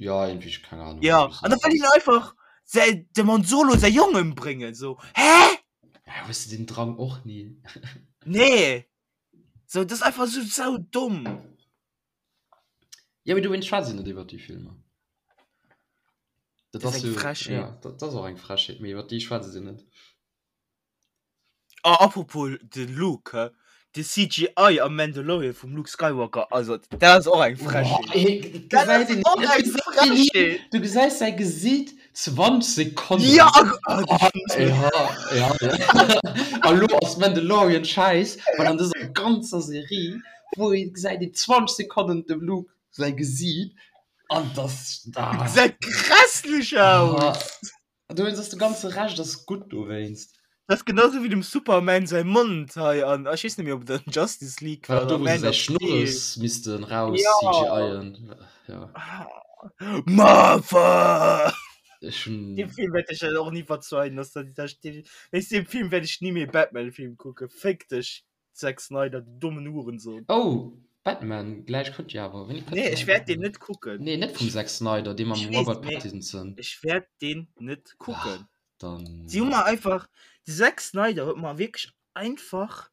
Ja, irgendwie, ech keng Ahnung. Ja, an da wëll hien einfach säi, dem Han Solo säi Jong ëmbréngen, so, hä? Ja, hues de den Drang och ni? Nee! So, dat ass einfach sou sau domm. Ja, mee dowéinst schwätze net iwwer déi Filmer. Dat Dat ass ass eng jo, Frechheet. ja, dat ass och eng Frechheet, mee iwwer déi schwätze se net. Oh, apropos de Luke, hä? De CGI am Mandalorian vum Luke Skywalker, also dat ass och eng Frechheet. Dat ass och eng Frechheet! Du gesäis säi Gesiit 20 Sekonnen. Ja, oh, ja, ja, ja. A lo ass Mandalorian schäiss, well an dëser ganzer Serie, wou ee gesäit een 20 Sekonnen dem Luke säi Gesiit an dass da. Gesäit grässlech aus! Dowéinst ass de ganze Rescht ass gutt dowéinst. Dat ass genau sou wéi dem Superman säi Mond hei an ech weess net méi ob et an Justice League war oder do wou se Man säi of Steel. Schnurres missten raus Ja. CGIen. Ja. Martha! Ech hunn. Deem Film wäert ech dat och ni verzeien, dass dat dat wéinst deem Film wäert ech ni méi e Batman-Film kucken. Féck dech Zack Snyder, du dommen Hurensohn. Oh, Batman, gläich kënnt jo awer. Wéini kënnt Nee, den ech neie wäert deen Batman? net kucken. Nee, net vum Zack Snyder, dee mam Ech weess, Robert mee Pattinson. ech wäert deen net Ah, kucken. dann. Si hu mer einfach, de Zack Snyder huet mer wierklech einfach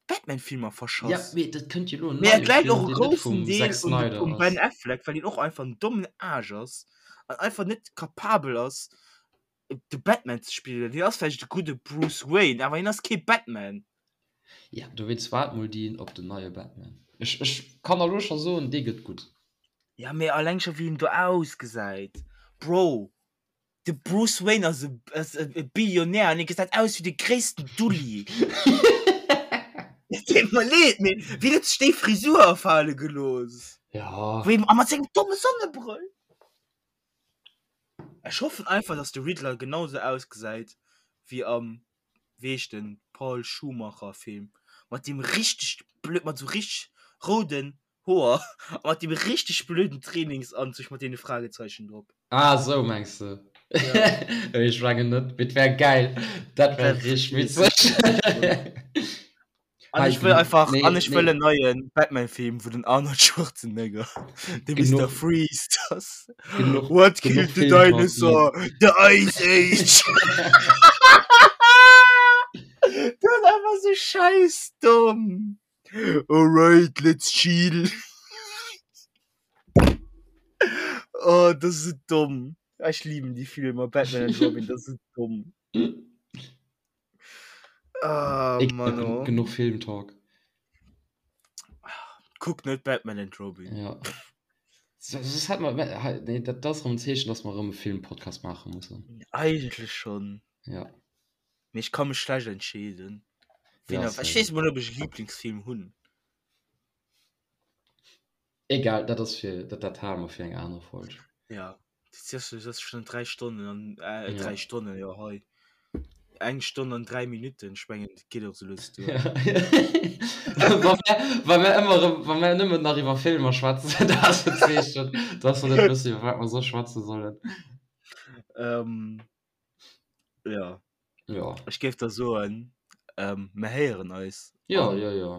d'Batman-Filmer Ja, verschass. mee dat kënnt jo elo en Mee et neie läit Film, och e deen net groussen vum Deel Zack un de, Snyder um Ben ass. Affleck, well hien och einfach en dommen Aarsch ass an einfach net kapabel ass, de Batman ze spillen. Hien ass vläicht e gudde Bruce Wayne, awer hien ass kee Batman. Ja, dowéinst waart mol deen op den neie Batman. Ech, ech kann der elo scho soen, dee gëtt gutt. Ja, mee alleng scho wéi en do ausgesäit. Bro, de Bruce Wayne ass e, ass e Billionär an hie gesäit aus wéi de gréissten Dulli. Et deet mer leed, mee wien huet sech déi Frisur afale gelooss? Ja. Wéi, a mat sengem domme Sonnebrëll. Ech hoffen einfach dass de Riddler genau sou ausgesäit wéi am wéi heescht den Paul Schumacher Film mat deem richteg blöd mat sou richteg rouden Hoer a mat deem richteg blöden Trainingsanzug mat deene Fragezeichen drop. Ah sou mengs de? Ja. Ech mengen net, mee et wär geil, dat wär richteg witzeg. An ech wëll einfach nee, an ech wëll nee. en neien Batman-Film, wou den Arnold Schwarzenegger de Mr. Genuch. Freeze ass. Genuch, What genuch killed the Filmparty. dinosaur? The Ice Age! Dat ass einfach sou schäissdomm. Alright, let's chill. Oh, dat ass sou domm. Ech liben déi Filmer, Batman and Robin, dat ass sou domm. Ah, Ich Mann, oh. Genug Filmtalk. Kuck net Batman and Robin. Ja. So, das hat man, nee, dat, das ist ein Zeechen, dass wir rëm e Filmpodcast machen müssen. Eigentlich schon. Ja. Mee ich kann mech schlecht entscheeden. Ja, Wen, ich same. weess mol, ob ech e Lieblingsfilm hunn. Egal, dat ass fir, dat, dat hale mer fir eng aner Folg. Ja, das ist, das ist schon drei Stonnen an äh, Ja. drei Stonnen, ja hei. Eng Stonn an drei Minuten, ich mengen, dat geet och so lues duer. Ja. Wa mir, wa mir ëmmer erëm, wa mir nëmmen nach iwwer Filmer schwätzen, dat ass en Zeechen, dass mer net wëssen, iwwer wat mer soss schwätze sollen. Ähm, ja. Ja. Ech géif da soen, ähm, mir héieren eis. Ja, an ja, ja.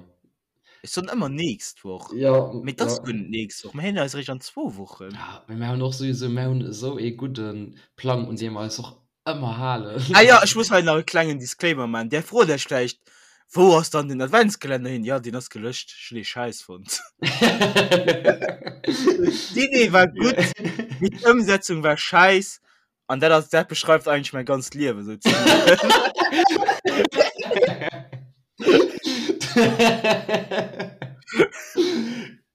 Ech soen ëmmer nächst Woch. Ja, Mee dat ass ja. guer net nächst Woch. Mir héieren eis eréischt an zwou Wochen. Ja, mee mir hunn och souwisou, mir hunn esou ee gudde Plang, un dee mer eis och ëmmer halen. Ah ja, ech muss hei nach e klengen Disclaimer maachen. Där frot Iech vläicht, Wou ass dann den Adventskalender hin? Ja, deen ass gelöscht. Ech hunn dee Schäiss fonnt. D'Idee war gutt, mee d'Ëmsetzung war schäiss. An dat ass, dat beschreift eigentlech mäi ganzt Liewen sou zimmlech.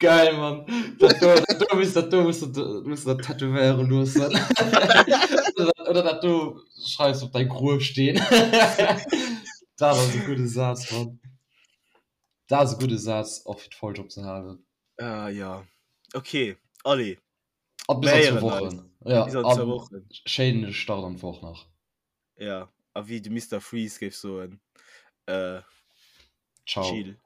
Geil, Mann. Dat do, dat do muss, dat do muss, muss dat tätowéiere loossen. Oder dat do schreifs op däi Gruefsteen. Dat ass e gudde Saz, Mann. Dat ass e gudde Saz, och fir d'Folg opzehalen. Ah, ja. Okay, allez. A bis an zwou Wochen. Ja, bis an zwou Wochen. Schéine Start an d'Woch nach. Ja, a wéi de Mister Freeze géif soen, äh, Ciao. Chill.